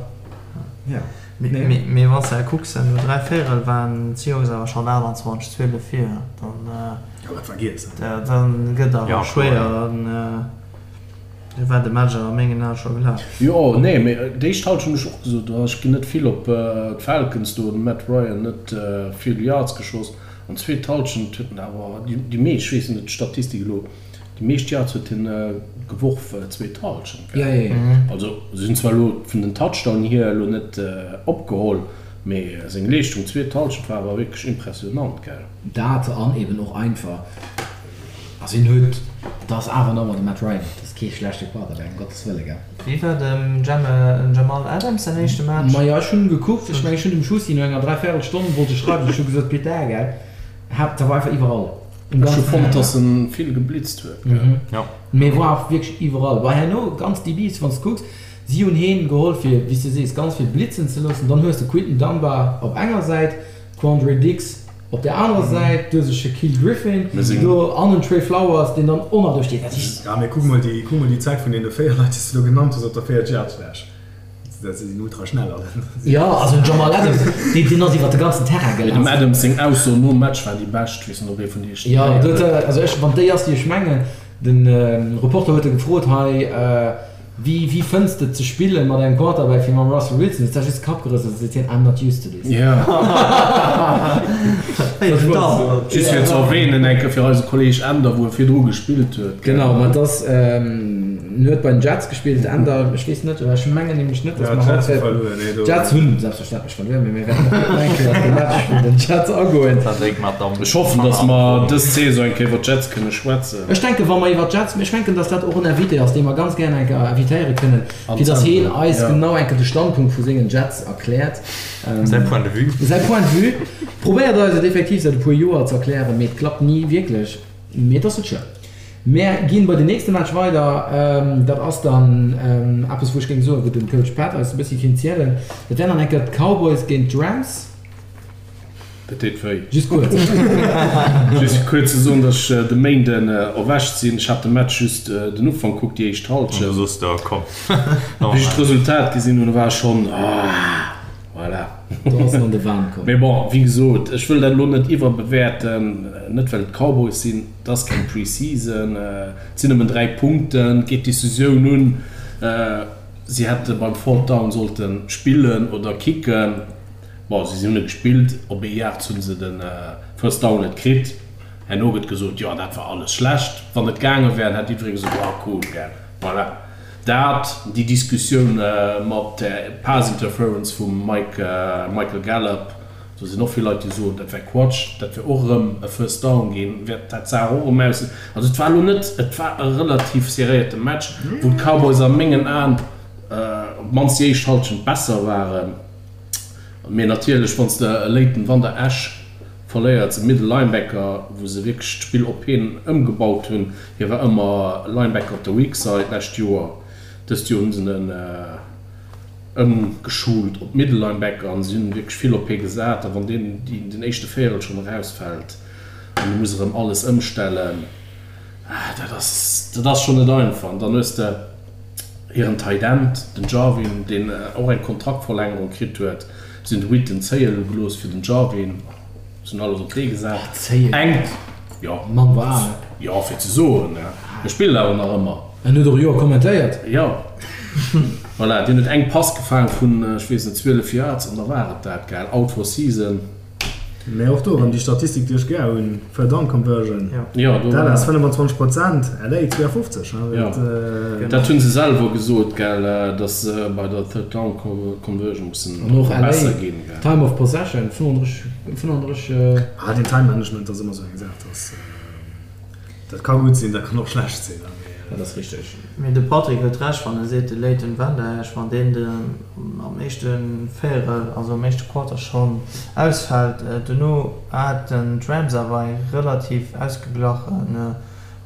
Ja. Mee, mee wann s de kucks, no 3 Véierel waren d'Seahawks awer schonn 28, 12 vir, dann, Ja, dat war giess, dann gëtt awer schwéier. An Du war de Match awer a mengen Ae scho gelaf. Jo, nee, mee déi éischt Halschent hunn ech och gesot, do ech ginn net vill op d'Falcons, do huet de Matt Ryan net vill Yards geschoss. An zweet Halschent huet en awer déi meescht, ech weess net d'Statistik elo, déi meescht Yards huet hien geworf zweet Halschent, gell? Also se hunn zwar elo vun den Touchdown hier elo net opgeholl, mee seng Leeschtung zweet Halschent war awer wierklech impressionant, gell? Dat an eben och einfach. Also hien huet, dat ass awer nach ëmmer de Matt Ryan, dat ass kee schlechte Quarterback, ëm Gottes Wëlle, gell. Wéi war dem Jamal Adams säin éischte Match? Majo, ech hunn gekuckt, ech mengen ech hunn dem Schussi no enger dräivéierel Stonn wollt ech schreiwen, ech hu gesot, Putain, gell, hat dat war einfach iwwerall, um Ech hu ganzen fonnt, Terrain. dass en vill geblitzt huet, gell. Jo. Mee war awer wierklech iwwerall. Well herno ganz DBs, wann s de kucks, si hunn heen geholl fir, wéi s de sees, ganz vill blitzen ze loossen. Dann hues de Quinton Dunbar op enger Säit, Quandre Diggs Op der anerer Säit du hues e Shaquille Griffin do an en Trey Flowers, deen dann och nach do steet. Dat heescht. Ja, mee kuck mol déi, kuck mol déi Zäit vun deene 4 Leit, déi s de elo genannt hues, op der 4 Yard-Fläch. Dat si sinn ultra schnell all. Jo, also den Jamal Adams, deen, deen ass iwwer de ganzen Terrain Mee dem gelaf. Adams seng Ausso nom Match war déi bescht, weess net, ob ee vun iech déi Jo, héieren do huet huet. e, also ech, wann déi ass, déi ech mengen, de Reporter huet e gefrot, hei, Wéi, wéi fënns de et ze spillen mat engem Quarterback wéi mam Russell Wilson? Huet sech just de Kapp gerëselt a seet hien, I'm not used to this. Jo. Just fir ze erwähnen eng Kéier fir eise Kolleg Änder, wou e virdru gespillt huet. Genau, ma et ass, en huet bei den Jets gespillt, Änder, ech weess net, ech mengen nämlech net, datt mer haut wäerten, d'Jets hunn selbstverständlech verluer, mee mir wäerten och net eng Kéier op de Match vun den Jets agoen. Ech hoffen, datt mer dës Saison eng Kéier iwwer d'Jets kënne schwätzen. Ech denken, wa mer iwwer d'Jets, ech menken, datt dat och en Invité ass, dee mer ganz gären eng Kéier invitéiere kënnen, fir datt hien eis genau eng Kéier de Standpunkt vu sengen Jets erkläert. Säi Point de vue. Säi Point de vue. Probéiert eis et effektiv säit e puer Joer ze erklären, mee et klappt ni wierklech. Mee et ass net schlëmm. Mär ginn bei den nächste Match weider. Dat ass dann eppes, wou ech géing soen, wou den Coach Pat eis e bëssi kéint zielen. Dat wären dann eng Kéier d'Cowboys géint d'Rams. Dat deet wéi. Just kuerz. Just fir kuerz ze soen, datt ech de Méinden erwächt sinn. Ech hat de Match just den Ufank kuckt, déi éischt Halschent. An du soss der, komm. Wéi ech d'Resultat gesinn hunn, war ech schonn, ah, voilà. Do ass en an de Wahn komm. Mee bon, wéi gesot, ech wëll dat elo net iwwerbewäerten, net well et d'Cowboys sinn, et ass keng Pre-Season, et sinn nëmmen 3 Punkten, et geet d'Decisioun un, si hätte beim Fourth Down sollte spillen oder kicken. Bon, si hunn e gespillt, op ee Yards hu se de First Down net kritt. Herno gëtt gesot, jo dat war alles schlecht. Wann et gaange wär, hätt jiddweree gesot, oh cool, gell. Voilà. Dat, déi Diskussioun mat der Pass Interference vum Mike, Michael Gallup, do sinn och vill Leit, déi soen, dat wär Quatsch, dat wär och erëm e First Down ginn, wäert dat d'Saach och erëm aus. Also et war elo net, et war e relativ serréierte Match, wou d'Cowboys a mengen Aen op d'mannst déi éischt Hallschent besser waren. Mee natierlech, wann s de e Leighton Vander Esch verléiers, e Middle Linebacker, wou se wierklech d'Spill op hien ëmgebaut hunn, hie war ëmmer Linebacker op der Weak Side d'lescht Joer, dëst Joer hu se en ëmgeschult op Middle Linebacker an si hunn wierklech vill op hie gesat. A wann deen den éischte Véierel schonn erausfält an du muss erëm alles ëmstellen, dat ass, dat ass schonn net einfach. An dann hues de. Hiren Tight End, den Jarwin, deen och eng Kontraktverlängerung kritt huet. Si hunn de Witten zéie gelooss fir den Jarwin. Si hunn alles op dee gesat. Zéie? Jo. Mann war al. Jo, fir ze soen. E spillt awer nach ëmmer. En huet och e Joer kommentéiert. Jo. Voilà, deen huet eng Pass gefaang vun, ech weess net, 12 Yards an da war et dat, gell. Out for season. Mä och do erëm déi Statistik, déi ech gär hunn, Third Down Conversion, Jo, do. Dallas 25 Prozent, LA 52. Jo, dat hu se selwer gesot, gell, datt se bei der Third Down Conversion mussen besser ginn. An och LA, Time of Possession, 35, 35. Ah, deen Time Management ass ëmmer esou eng Saach, dass. Dat ka gutt sinn, dat kann och schlecht sinn. Dat ass richteg. Mee de Patrick huet Recht, wann e seet, de Leighton Vander Esch, wann deen am éischte Véierel, also am éischte Quarter schonn ausfält. Dono haten d'Rams awer eng relativ ausgeglache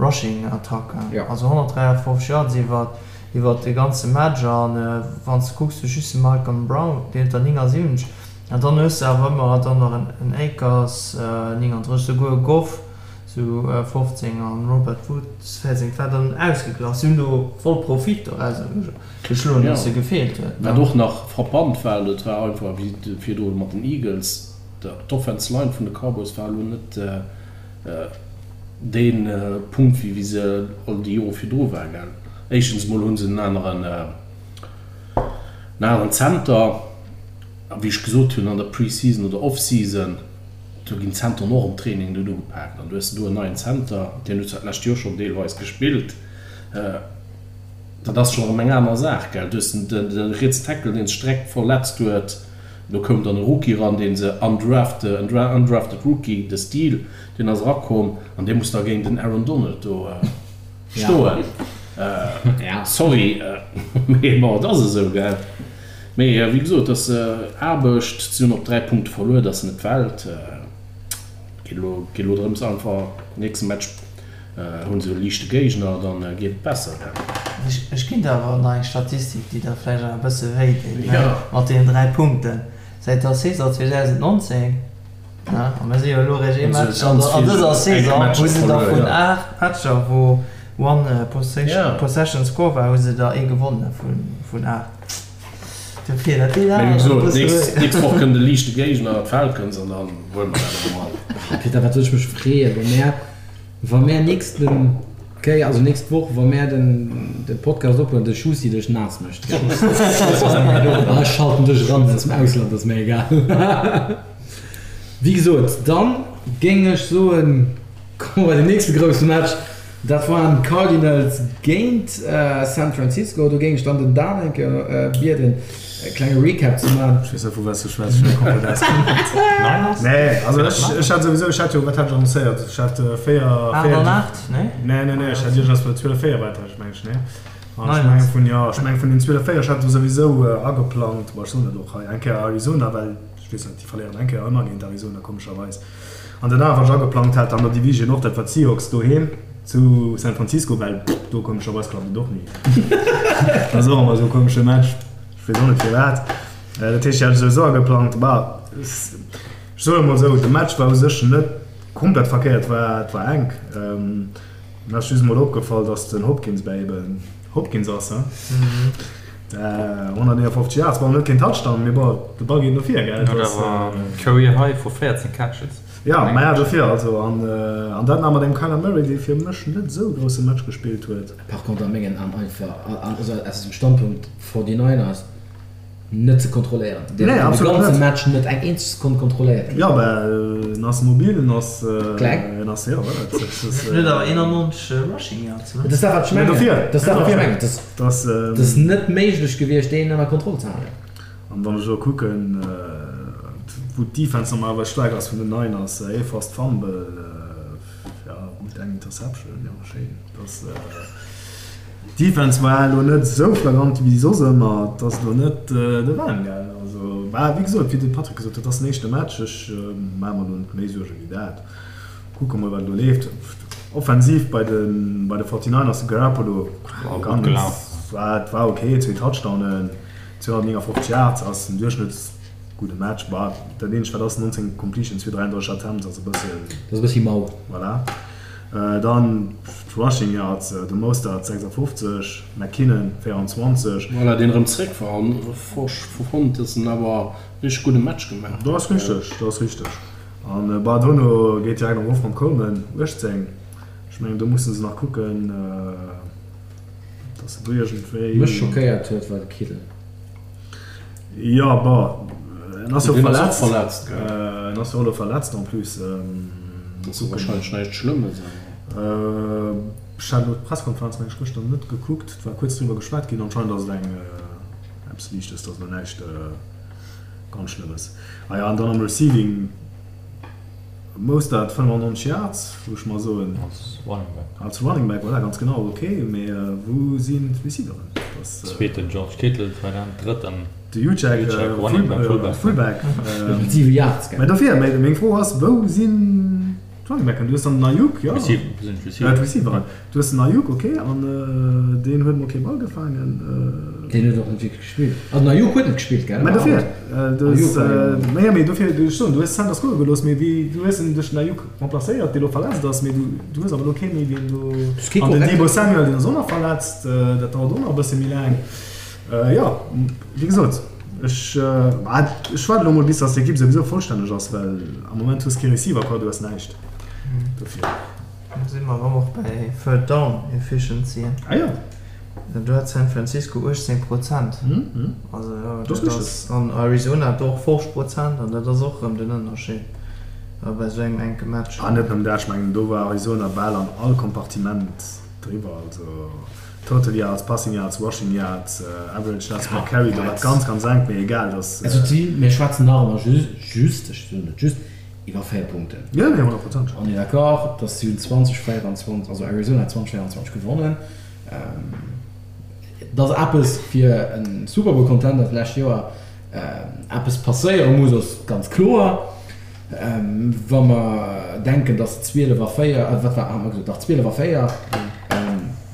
Rushing Attack, also 153 Yards iwwer de ganze Match. A wann s de kucks, du just de Malcolm Brown, deen huet der 79, an dann hues de awer ëmmer dann nach en Akers, 39, souguer e Goff, Zu 15 an Robert Woods 14. Et war dann ausgeglach. Si hunn do voll Profit dorauser geschloen, dass se gefeelt huet. Wat och nach frappant war, dat war einfach wéi virdru mat den Eagles, d'Offense Line vun de Cowboys war elo net dee Punkt wéi wéi se all déi Jore virdru war. Éischtens emol hu se en aneren en aneren Center a wéi ech gesot hunn an der Pre-Season oder Off-Season, Do ginn d'Zenteren och am Training net ugepaakt. An du hues do en neien Zenter, deen huet zwar d'lescht Joer schonn deelweis gespillt, dat ass schonn erëm eng aner Saach, gell. Du hues de rietsen Tackle, dee sech direkt verletzt huet. Do koum dann e Rookie eran, dee se undrafted, en undrafted Rookie, de Steele, deen ass erakomm an dee muss da géint den Aaron Donald do stoen. Sorry, mee bon, et ass esou, gell. Mee wéi gesot, et ass Aarbecht. Si hunn op 3 Punkte verluer, dat ass net d'Welt. Et geet elo drëms einfach, nächste Match hu se e liichte Géigner, da geet et besser. Ech ginn der awer nach eng Statistik, déi der vläicht awer e bësse wéi deet, mat deenen 3 Punkten. Säit der Saison 2019, a mir si jo elo eréischt ee Match an dëser Saison, hu se der vun 8 Matcher, wou One Possession Score war, hu se der ee gewonne vun 8. Dofir, dat deet Mee awer wéi e gesot, bësse nächst, wéi. nächst Woch kënnt e liichte Géigner, d'Falcons, an dann huele mer dat erëm an. Ah Peter, wat soll ech mech freeën, wa mär, wa mär nächste Kéier, also nächst Woch, wa mär den, de Podcast ophuelen, de Schusi dech naass mécht. Ah, ech schalten dech eran aus dem Ausland, ass mir egal. Wéi gesot, dann géing ech soen, komme mer bei den nächste grousse Match. Dat waren d'Cardinals géint San Francisco. Do géing ech dann den Dan eng Kéier bieden, e klenge Recap ze maachen. Ech weess net, vu wat s du schwätz, ech hunn komplett ausgeblend. Niners? Nee, also ech, ech hat souwisou, ech hat jo, wat hat ech annoncéiert? Ech hat 4, 8 an 8, nee? Nee, nee, nee, ech hat iergendeppes bei 12, 4 war dat, meng ech, nee? An ech mengen vun, jo, ech mengen vun den 12, 4, ech hat do souwisou ageplangt, bon, ech soen dat och hei, eng Kéier Arizona, well ech weess net, déi verléieren eng Kéier ëmmer géint Arizona, komescherweis. An den awer ech ageplangt hat an der Division och, dat war d'Seahawks doheem zu San Francisco, well do komescherweis klappt et och ni. Dat ass och ëmmer esou e komesche Match, ech weess och net firwat. Dat heescht, déi hat ech souwisou ageplangt. Bah, ech soen emol esou, de Match war u sech net komplett verkéiert, war, et war enk. Mir ass just emol opgefall, datt den Hopkins bäi eben Hopkins ass, he? 159 Yards, bon, net keen Touchdown, mee bon, de Ball geet no vir, gell? Huet awer Career High vu 14 Catches. Ja, maja, dofir also. An, an dat nach mat engem Kyler Murray, dee fir mech net esou e grousse Match gespillt huet. Par contre a mengen Aen einfach, also aus dem Standpunkt 49ers, Net ze kontrolléieren. Deen Nee, huet de absolut ganze net. Match net eng eenzeg Sekonn kontrolléiert kritt. Jo, mä en ass mobil, en ass, Kleng. en ass, jo, voilà, et ass, En huet awer 91 Rushing Yards, ne? Dat ass dat, wat ech Mä mengen. dofir, Dat ass dat, wat ech dofir. mengen. Dat ass, Dat ass, dat ass net méiglech gewiescht, deen ënner Kontroll ze halen. An wann ech elo kucken, wou d'Defense normalerweis staark ass vun den Niners, ee Forced Fumble, jo, gutt, eng Interception, jo, schéin. Dat ass. D'Defense war elo net esou flagrant wéi soss ëmmer. Et ass elo net de Wahn gaangen. Also, bah, wéi gesot, wéi de Patrick gesot huet, et ass den éischte Match. Ech maache mer elo net méi Suerge wéi dat. Kucke mol, wat elo leeft. Offensiv bei de bei de 49ers, de Garoppolo War gutt gelaf. War, war ok, zwee Touchdownen, 259 Yards ass en Duerchschnëtts. Gudde Match, bah, dat eenzegt wat ass, 19 Completions fir 33 Attempts ass e bëssen. Dat ass e bëssi mau. Voilà. Dann d'Rushing Yards, de Mostert 56, McKinnon 24. Voilà, deen erëm zréck war an fonnt, dass en awer richteg gudde Match gemaach huet. Dat ass richteg, dat ass richteg. An bah, dono geet direkt erof mam Coleman, 18. Ech mengen do musse se nach kucken, dass se do iergendwéi. Mech schockéiert huet war de Kittle. Jo, bon, en ass jo Deen ass och verletzt. verletzt, gell? En ass jo och elo verletzt en plus. Ass jo wahrscheinlech näischt Schlëmmes, awer. Ech hat elo d'Presskonferenz, meng ech, gëschter net gekuckt. Et war kuerz driwwer geschwat ginn. Anscheinend ass et eng eppes Liichtes, et ass elo näischt ganz Schlëmmes. Ah jo, an dann am Receiving. Mostert 95 Yards, wou ech mer soen. Als Running Back. Als Running Back, voilà, ganz genau, ok. Mee wou sinn d'Receiveren? Zweeten George Kittle, Tight End, drëtten De Juszczyk, Running Back, Fullback. Fullback. Mat 7 Yards, gell? Mä dofir, meng Fro ass, wou sinn d'Running Backen? Du hues dann den Aiyuk, jo. D'Receiveren. Du hues den Aiyuk, ok, an deen huet mol kee Ball gefaangen. Deen huet och net wierklech gespillt. Also den Aiyuk huet net gespillt, gell? Mä dofir, du hues, naja, mee dofir, ech soen, du hues Sanders goe gelooss, mee wéi, du hues en duerch den Aiyuk remplacéiert, dee lo verletzt ass, mee du, du hues awer elo kee méi, deen do, an den Deebo Samuel, deen ass och nach verletzt, dat dauert och nach e bësse méi laang. Jo, wéi gesot, ech, ech waarde lo mol bis datt d'Ekipp souwisou vollstänneg ass, well am Moment hues kee Receiver, quoi, du hues näischt dofir. Do si mer erëm och bäi Third Down Efficiency. Ah jo. Do hat San Francisco 18 Prozent. Also jo, dat ass, an Arizona hat och 50 Prozent an dat ass och erëm den Ënnerscheed bei esou engem enke Match. An net nëmmen dat, ech mengen do war Arizona bal an all Kompartiment driwwer, also Total Yards, Passing Yards, Rushing Yards, Average Yards per Carry, do war et ganz, ganz enk, mee egal, dass. Also mir schwätzen nach ëmmer just, ech soen net just, Iwwer 4 Punkten. Jo, nee, 100%. On est d'accord, dass si hunn 20, 24, also Arizona huet 20, 24 gewonnen. Et ass eppes fir e Super Bowl Contender d'lescht Joer eppes passéiere muss, ass ganz kloer. Wa mer denken, dass se 12 a 4, wat war, hat mer gesot, dach 12 a 4,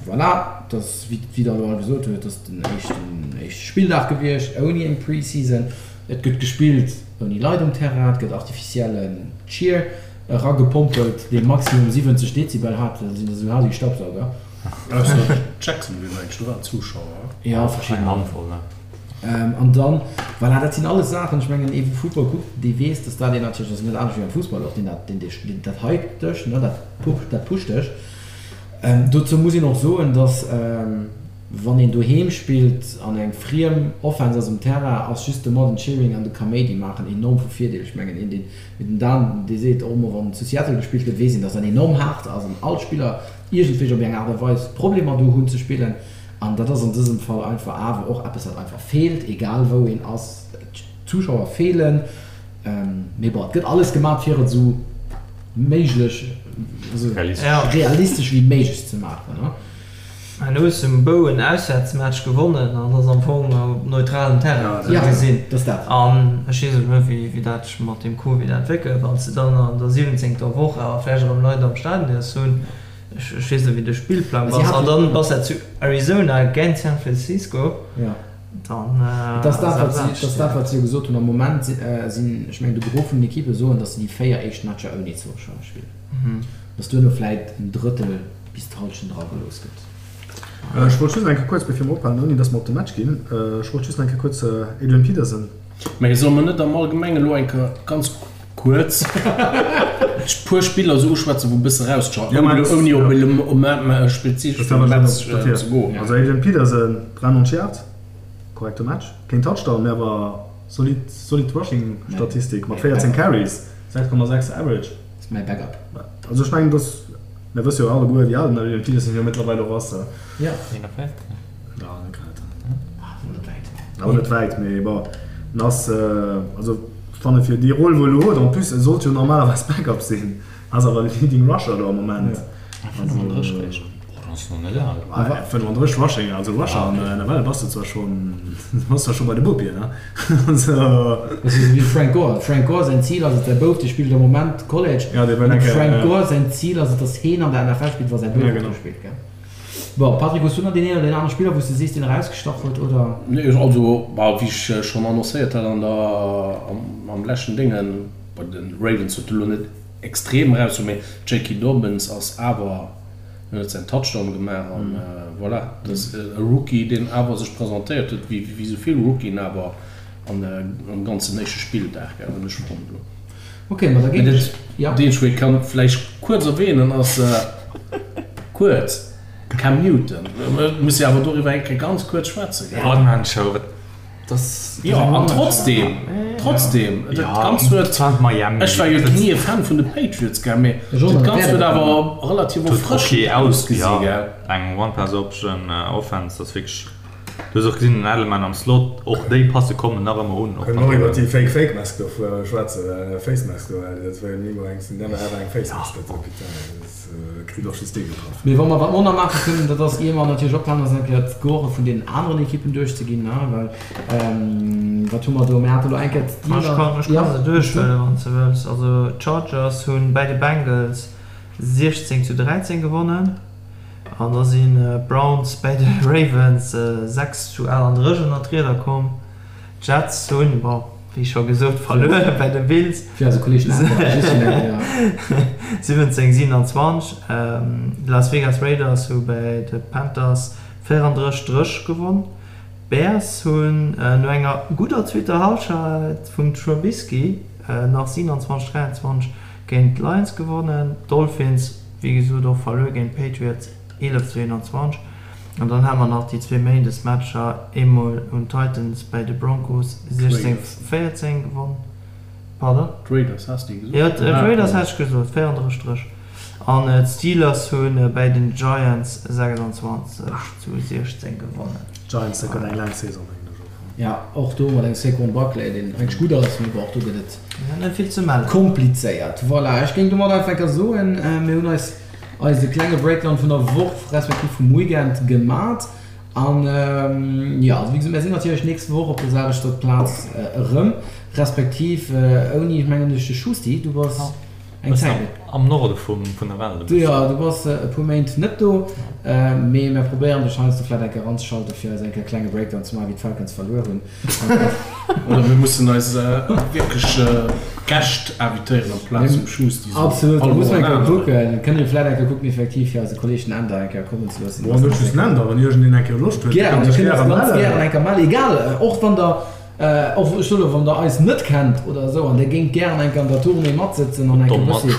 voilà, dass, wéi Der elo all gesot hutt, dass den éischten, éischte Spilldag gewiescht ouni eng Preseason. Et gëtt gespillt ouni Leit um Terrain, et gëtt artificiellen Cheer eragepompelt, dee maximum 70 Dezibel hat, dat sinn esou hal wéi Staubsauger. Ausser Jacksonville, mengen ech, do waren Zuschauer. Jo, verschidden. Eng Handvoll, ne? An dann, voilà, dat sinn alles Saachen, ech mengen, ee wou Futtball kuckt, dee weess, dass dat een natierlech, dat ass net anescht wéi am Fussball och, deen dat, deen dech, deen dat hypt dech, ne, dat dat pusht dech. Dozou muss een och soen, dass. Wann een doheem spillt an eng friem Offense ass um Terrain, ass just de Modern Cheering an de Kaméidi maachen enorm vu Virdeel. Ech mengen, een deen, wéi den Dan dee seet, och emol wann zu Seattle gespillt gëtt, weess een, datt dat enorm haart ass an all Spiller iergendwéi op eng Aart a Weis Problemer do hunn ze spillen. An dat ass an dësem Fall einfach awer och eppes, wat einfach feelt, egal wou een ass. D'Zuschauer feelen. Mee bon, et gëtt alles gemat fir et esou méiglech, esou realistesch wéi méiglech ze maachen. An hues um Bou en Auswäertsmatch gewonnen an ass am Fong op neutralem Terrain esou gesinn. An ech weess elo net wéi dat sech mat deem Covid entwéckelt, wann s de dann an der siwwenzéngter Woch awer vläicht erëm Leit am Stadion däerfs hunn, ech weess net wéi de Spillplang ass, an dann bass de zu Arizona géint San Francisco, dann Et ass dat wat si, et ass dat wat si jo gesot hunn. Am Moment sinn, ech mengen de Gros vun den Ekippe soen, datt se déi 4 éischt Matcher ouni Zuschauer spillen, datt duerno vläit en Drëttel bis d'Halschent eragelooss gëtt. Ech wollt just nach eng Kéier kuerz, bevir mer ophalen, ouni dass mer op de Match ginn, ech wollt just nach eng Kéier kuerz Adrian Peterson. Mä solle mer net am Allgemenge elo eng Kéier ganz kuerz puer Spiller esou uschwätzen, wou e bësse erausstach, ouni op e spezifesche Match ze goen? Also Adrian Peterson, 93 Yards, korrekte Match, keen Touchdown, mä awer solid, solid Rushing-Statistik mat 14 Carries, 6,6 Average. Ass mäi Backup. Also ech mengen, dass, mir wësse jo alleguer, wéi al den Adrian Peterson jo mëttlerweil och ass. Jo. 41? Jo, net grad. Ah, awer net wäit. Awer net wäit, mee bon, en ass, also ech fanne fir déi Roll, wou e elo huet, en plus e sollt jo normalerweis Backup sinn, ass awer Leading Rusher do am Moment. 35 réischt. Oh, dann ass en nach net al. Ah, 35 Rushing, also Rusher an der NFL bass de zwar schonn, bass zwar scho bei de Bopien, ne? Also. Dat ass esou wéi Frank Gore. Frank Gore säin Zil ass et, säi Bouf, dee spillt am Moment College, Ja, dee wëll an eng Kéier, Frank Gore säin Zil ass et, datt heen an der NFL spillt, wa säi Bouf Ja, och do genau. spillt, gell? Bon, Patrick, hues du nach deen een oder deen anere Spiller, wou s de sees, deen erausgestach huet, oder? Nee, also, bah, wéi ech schonn annoncéiert hat an der, am, am leschten Déngen, bei de Ravens huet e lo net extrem eraus, mee J.K. Dobbins ass awer, en huet säin Touchdown gemaach an voilà, dat ass e Rookie, deen awer sech presentéiert huet, wéi wéi esou vill Rookien awer an am ganzen éischte Spilldag, gell, hunn ech fonnt elo. Ok, ma da Mee géing dat ech, ja. deen ech wéi kann vläicht kuerz erwähnen ass, kuerz, Cam Newton. Mir musse jo awer doriwwer eng Kéier ganz kuerz schwätzen, gell? One-Man-Show, wat Das, jo, an trotzdem, trotzdem, dat Ganzt huet, ech war jo ni e Fan vun de Patriots, gell, mee dat Ganzt huet awer relativ erfrëschend ausgesi, gell. Eng One-Pass-Option Offense, dat ass wierklech, du hues och gesinn, den Edelman am Slot, och déi Passe kommen nach ëmmer un. Kënne mer och iwwer déi Fake Fake Mask do schwätzen, Face Mask do, well dat war jo ni emol eng, never ever eng Face Mask, dat, putain, dat. Kritt och just dee getraff. Mee wa mer wat mer och nach maache kënnen, dat ass, ier mer natierlech ophalen, ass eng Kéier d'Score vun deenen aneren Ekippen duerchzeginn, ne? Well wat hu mer do? Mir hate lo eng Kéier d'Steelers. Ech kann, ech kann se duerchhuelen, wann s de wëlls. Also d'Chargers hunn bäi de Bengals 16 zu 13 gewonnen an da sinn d'Browns bäi de Ravens 6 zu 38 ënner d'Rieder komm. D'Jets hunn, bon, wéi scho gesot, verluer bei de Bills. Fir eise Kolleeg den Antoine, just fir eng Kéier. 17, 27. D'Las Vegas Raiders hu bei de Panthers 34, 30 gewonn. D'Bears hunn no enger gudder zweeter Hallschent vum Trubisky nach 27, 23 géint d'Lions gewonnen. D'Dolphins, wéi gesot, och verluer géint d'Patriots 11 zu 21. An dann hate mer nach déi zwee Méindesmatcher, eemol hunn d'Titans bäi de Broncos 16, 14 gewonn. Pardon? D'Raiders has de gesot? Jo, d'Raiders hat ech gesot, 34, 30. An d'Steelers hu bäi den Giants 26 zu 16 gewonnen. D'Giants, dat gëtt eng laang Saison, mengen ech och. Jo, och do mat engem Saquon Barkley, deen eigentlech gutt ass, mee bon, och do gëtt et Net vill ze mellen. komplizéiert. Voilà, ech géing domat einfach enker soen, mir hunn eis eise klenge Breakdown vun der Woch respektiv vum Weekend gemat an jo, also wéi gesot, mär sinn natierlech nächst Woch op der selwechter Plaz erëm, respektiv ouni, mengen ech, de Schusti, du bass eng Zäit net. Am Norde vun der Welt e bëssen. Jo, du bass e puer Méint net do, mee mär probéieren dech heiansdo vläit eng Kéier eranzeschalten, fir eis eng Kéier e klenge Breakdown ze maachen, wéi d'Falcons verluer hunn. Oder mir mussen eis wierklech Gäscht invitéieren amplaz vum Schusti. Absolut, da musse mer eng Kéier kucken. Kënne mir vläit eng Kéier kucken, effektiv, fir eise Kolleeg den Änder eng Kéier kommen ze loossen. Bon, net just den Änder, wann iergendeen eng Kéier Loscht huet, Gären, kann dir sech kënnt gäre eis ganz mellen. gären eng Kéier mellen, egal, och wann der. Och ech soen, wann der eis net kennt oder esou an der géingt gären eng Kéier an der Tournée matsëtzen an eng Kéier e bëssi,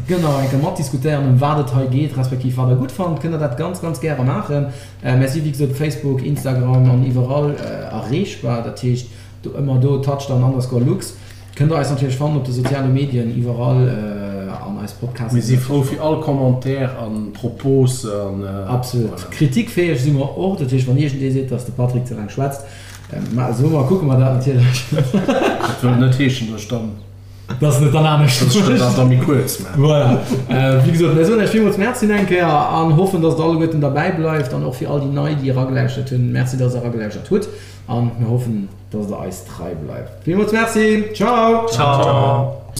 genau, eng Kéier matdiskutéieren, ëm wat et hei geet, respektiv wat der gutt fannt, kënnt der dat ganz, ganz gäre maachen. Mir si wéi gesot op Facebook, Instagram an iwwerall erreechbar. Dat heescht do ëmmer do touchdown underscore lux kënnt der eis natierlech fannen op de soziale Medien iwwerall an eis Podcasten. Mir si frou fir all Commentaire an Propose an Absolut. Voilà. Kritikfäeg si mer och. Dat heescht, wann iergendee seet, dass de Patrick ze laang schwätzt, Ma esou, ma kucke mer dat natierlech. Dat wëll net heeschen, dass ech dann. Dass en et dann anescht mécht. Dass ech dat da méi kuerz maachen. Voilà. Wéi gesot, mir soen Iech villmools Merci eng Kéier an hoffen, dass Der alleguerten derbäi bleift an och fir all déi Nei, déi eragelauschert hunn, Merci, dass Der eragelauschert hutt an mir hoffen, dass Der eis trei bleift. Villmools Merci. Ciao. Ciao.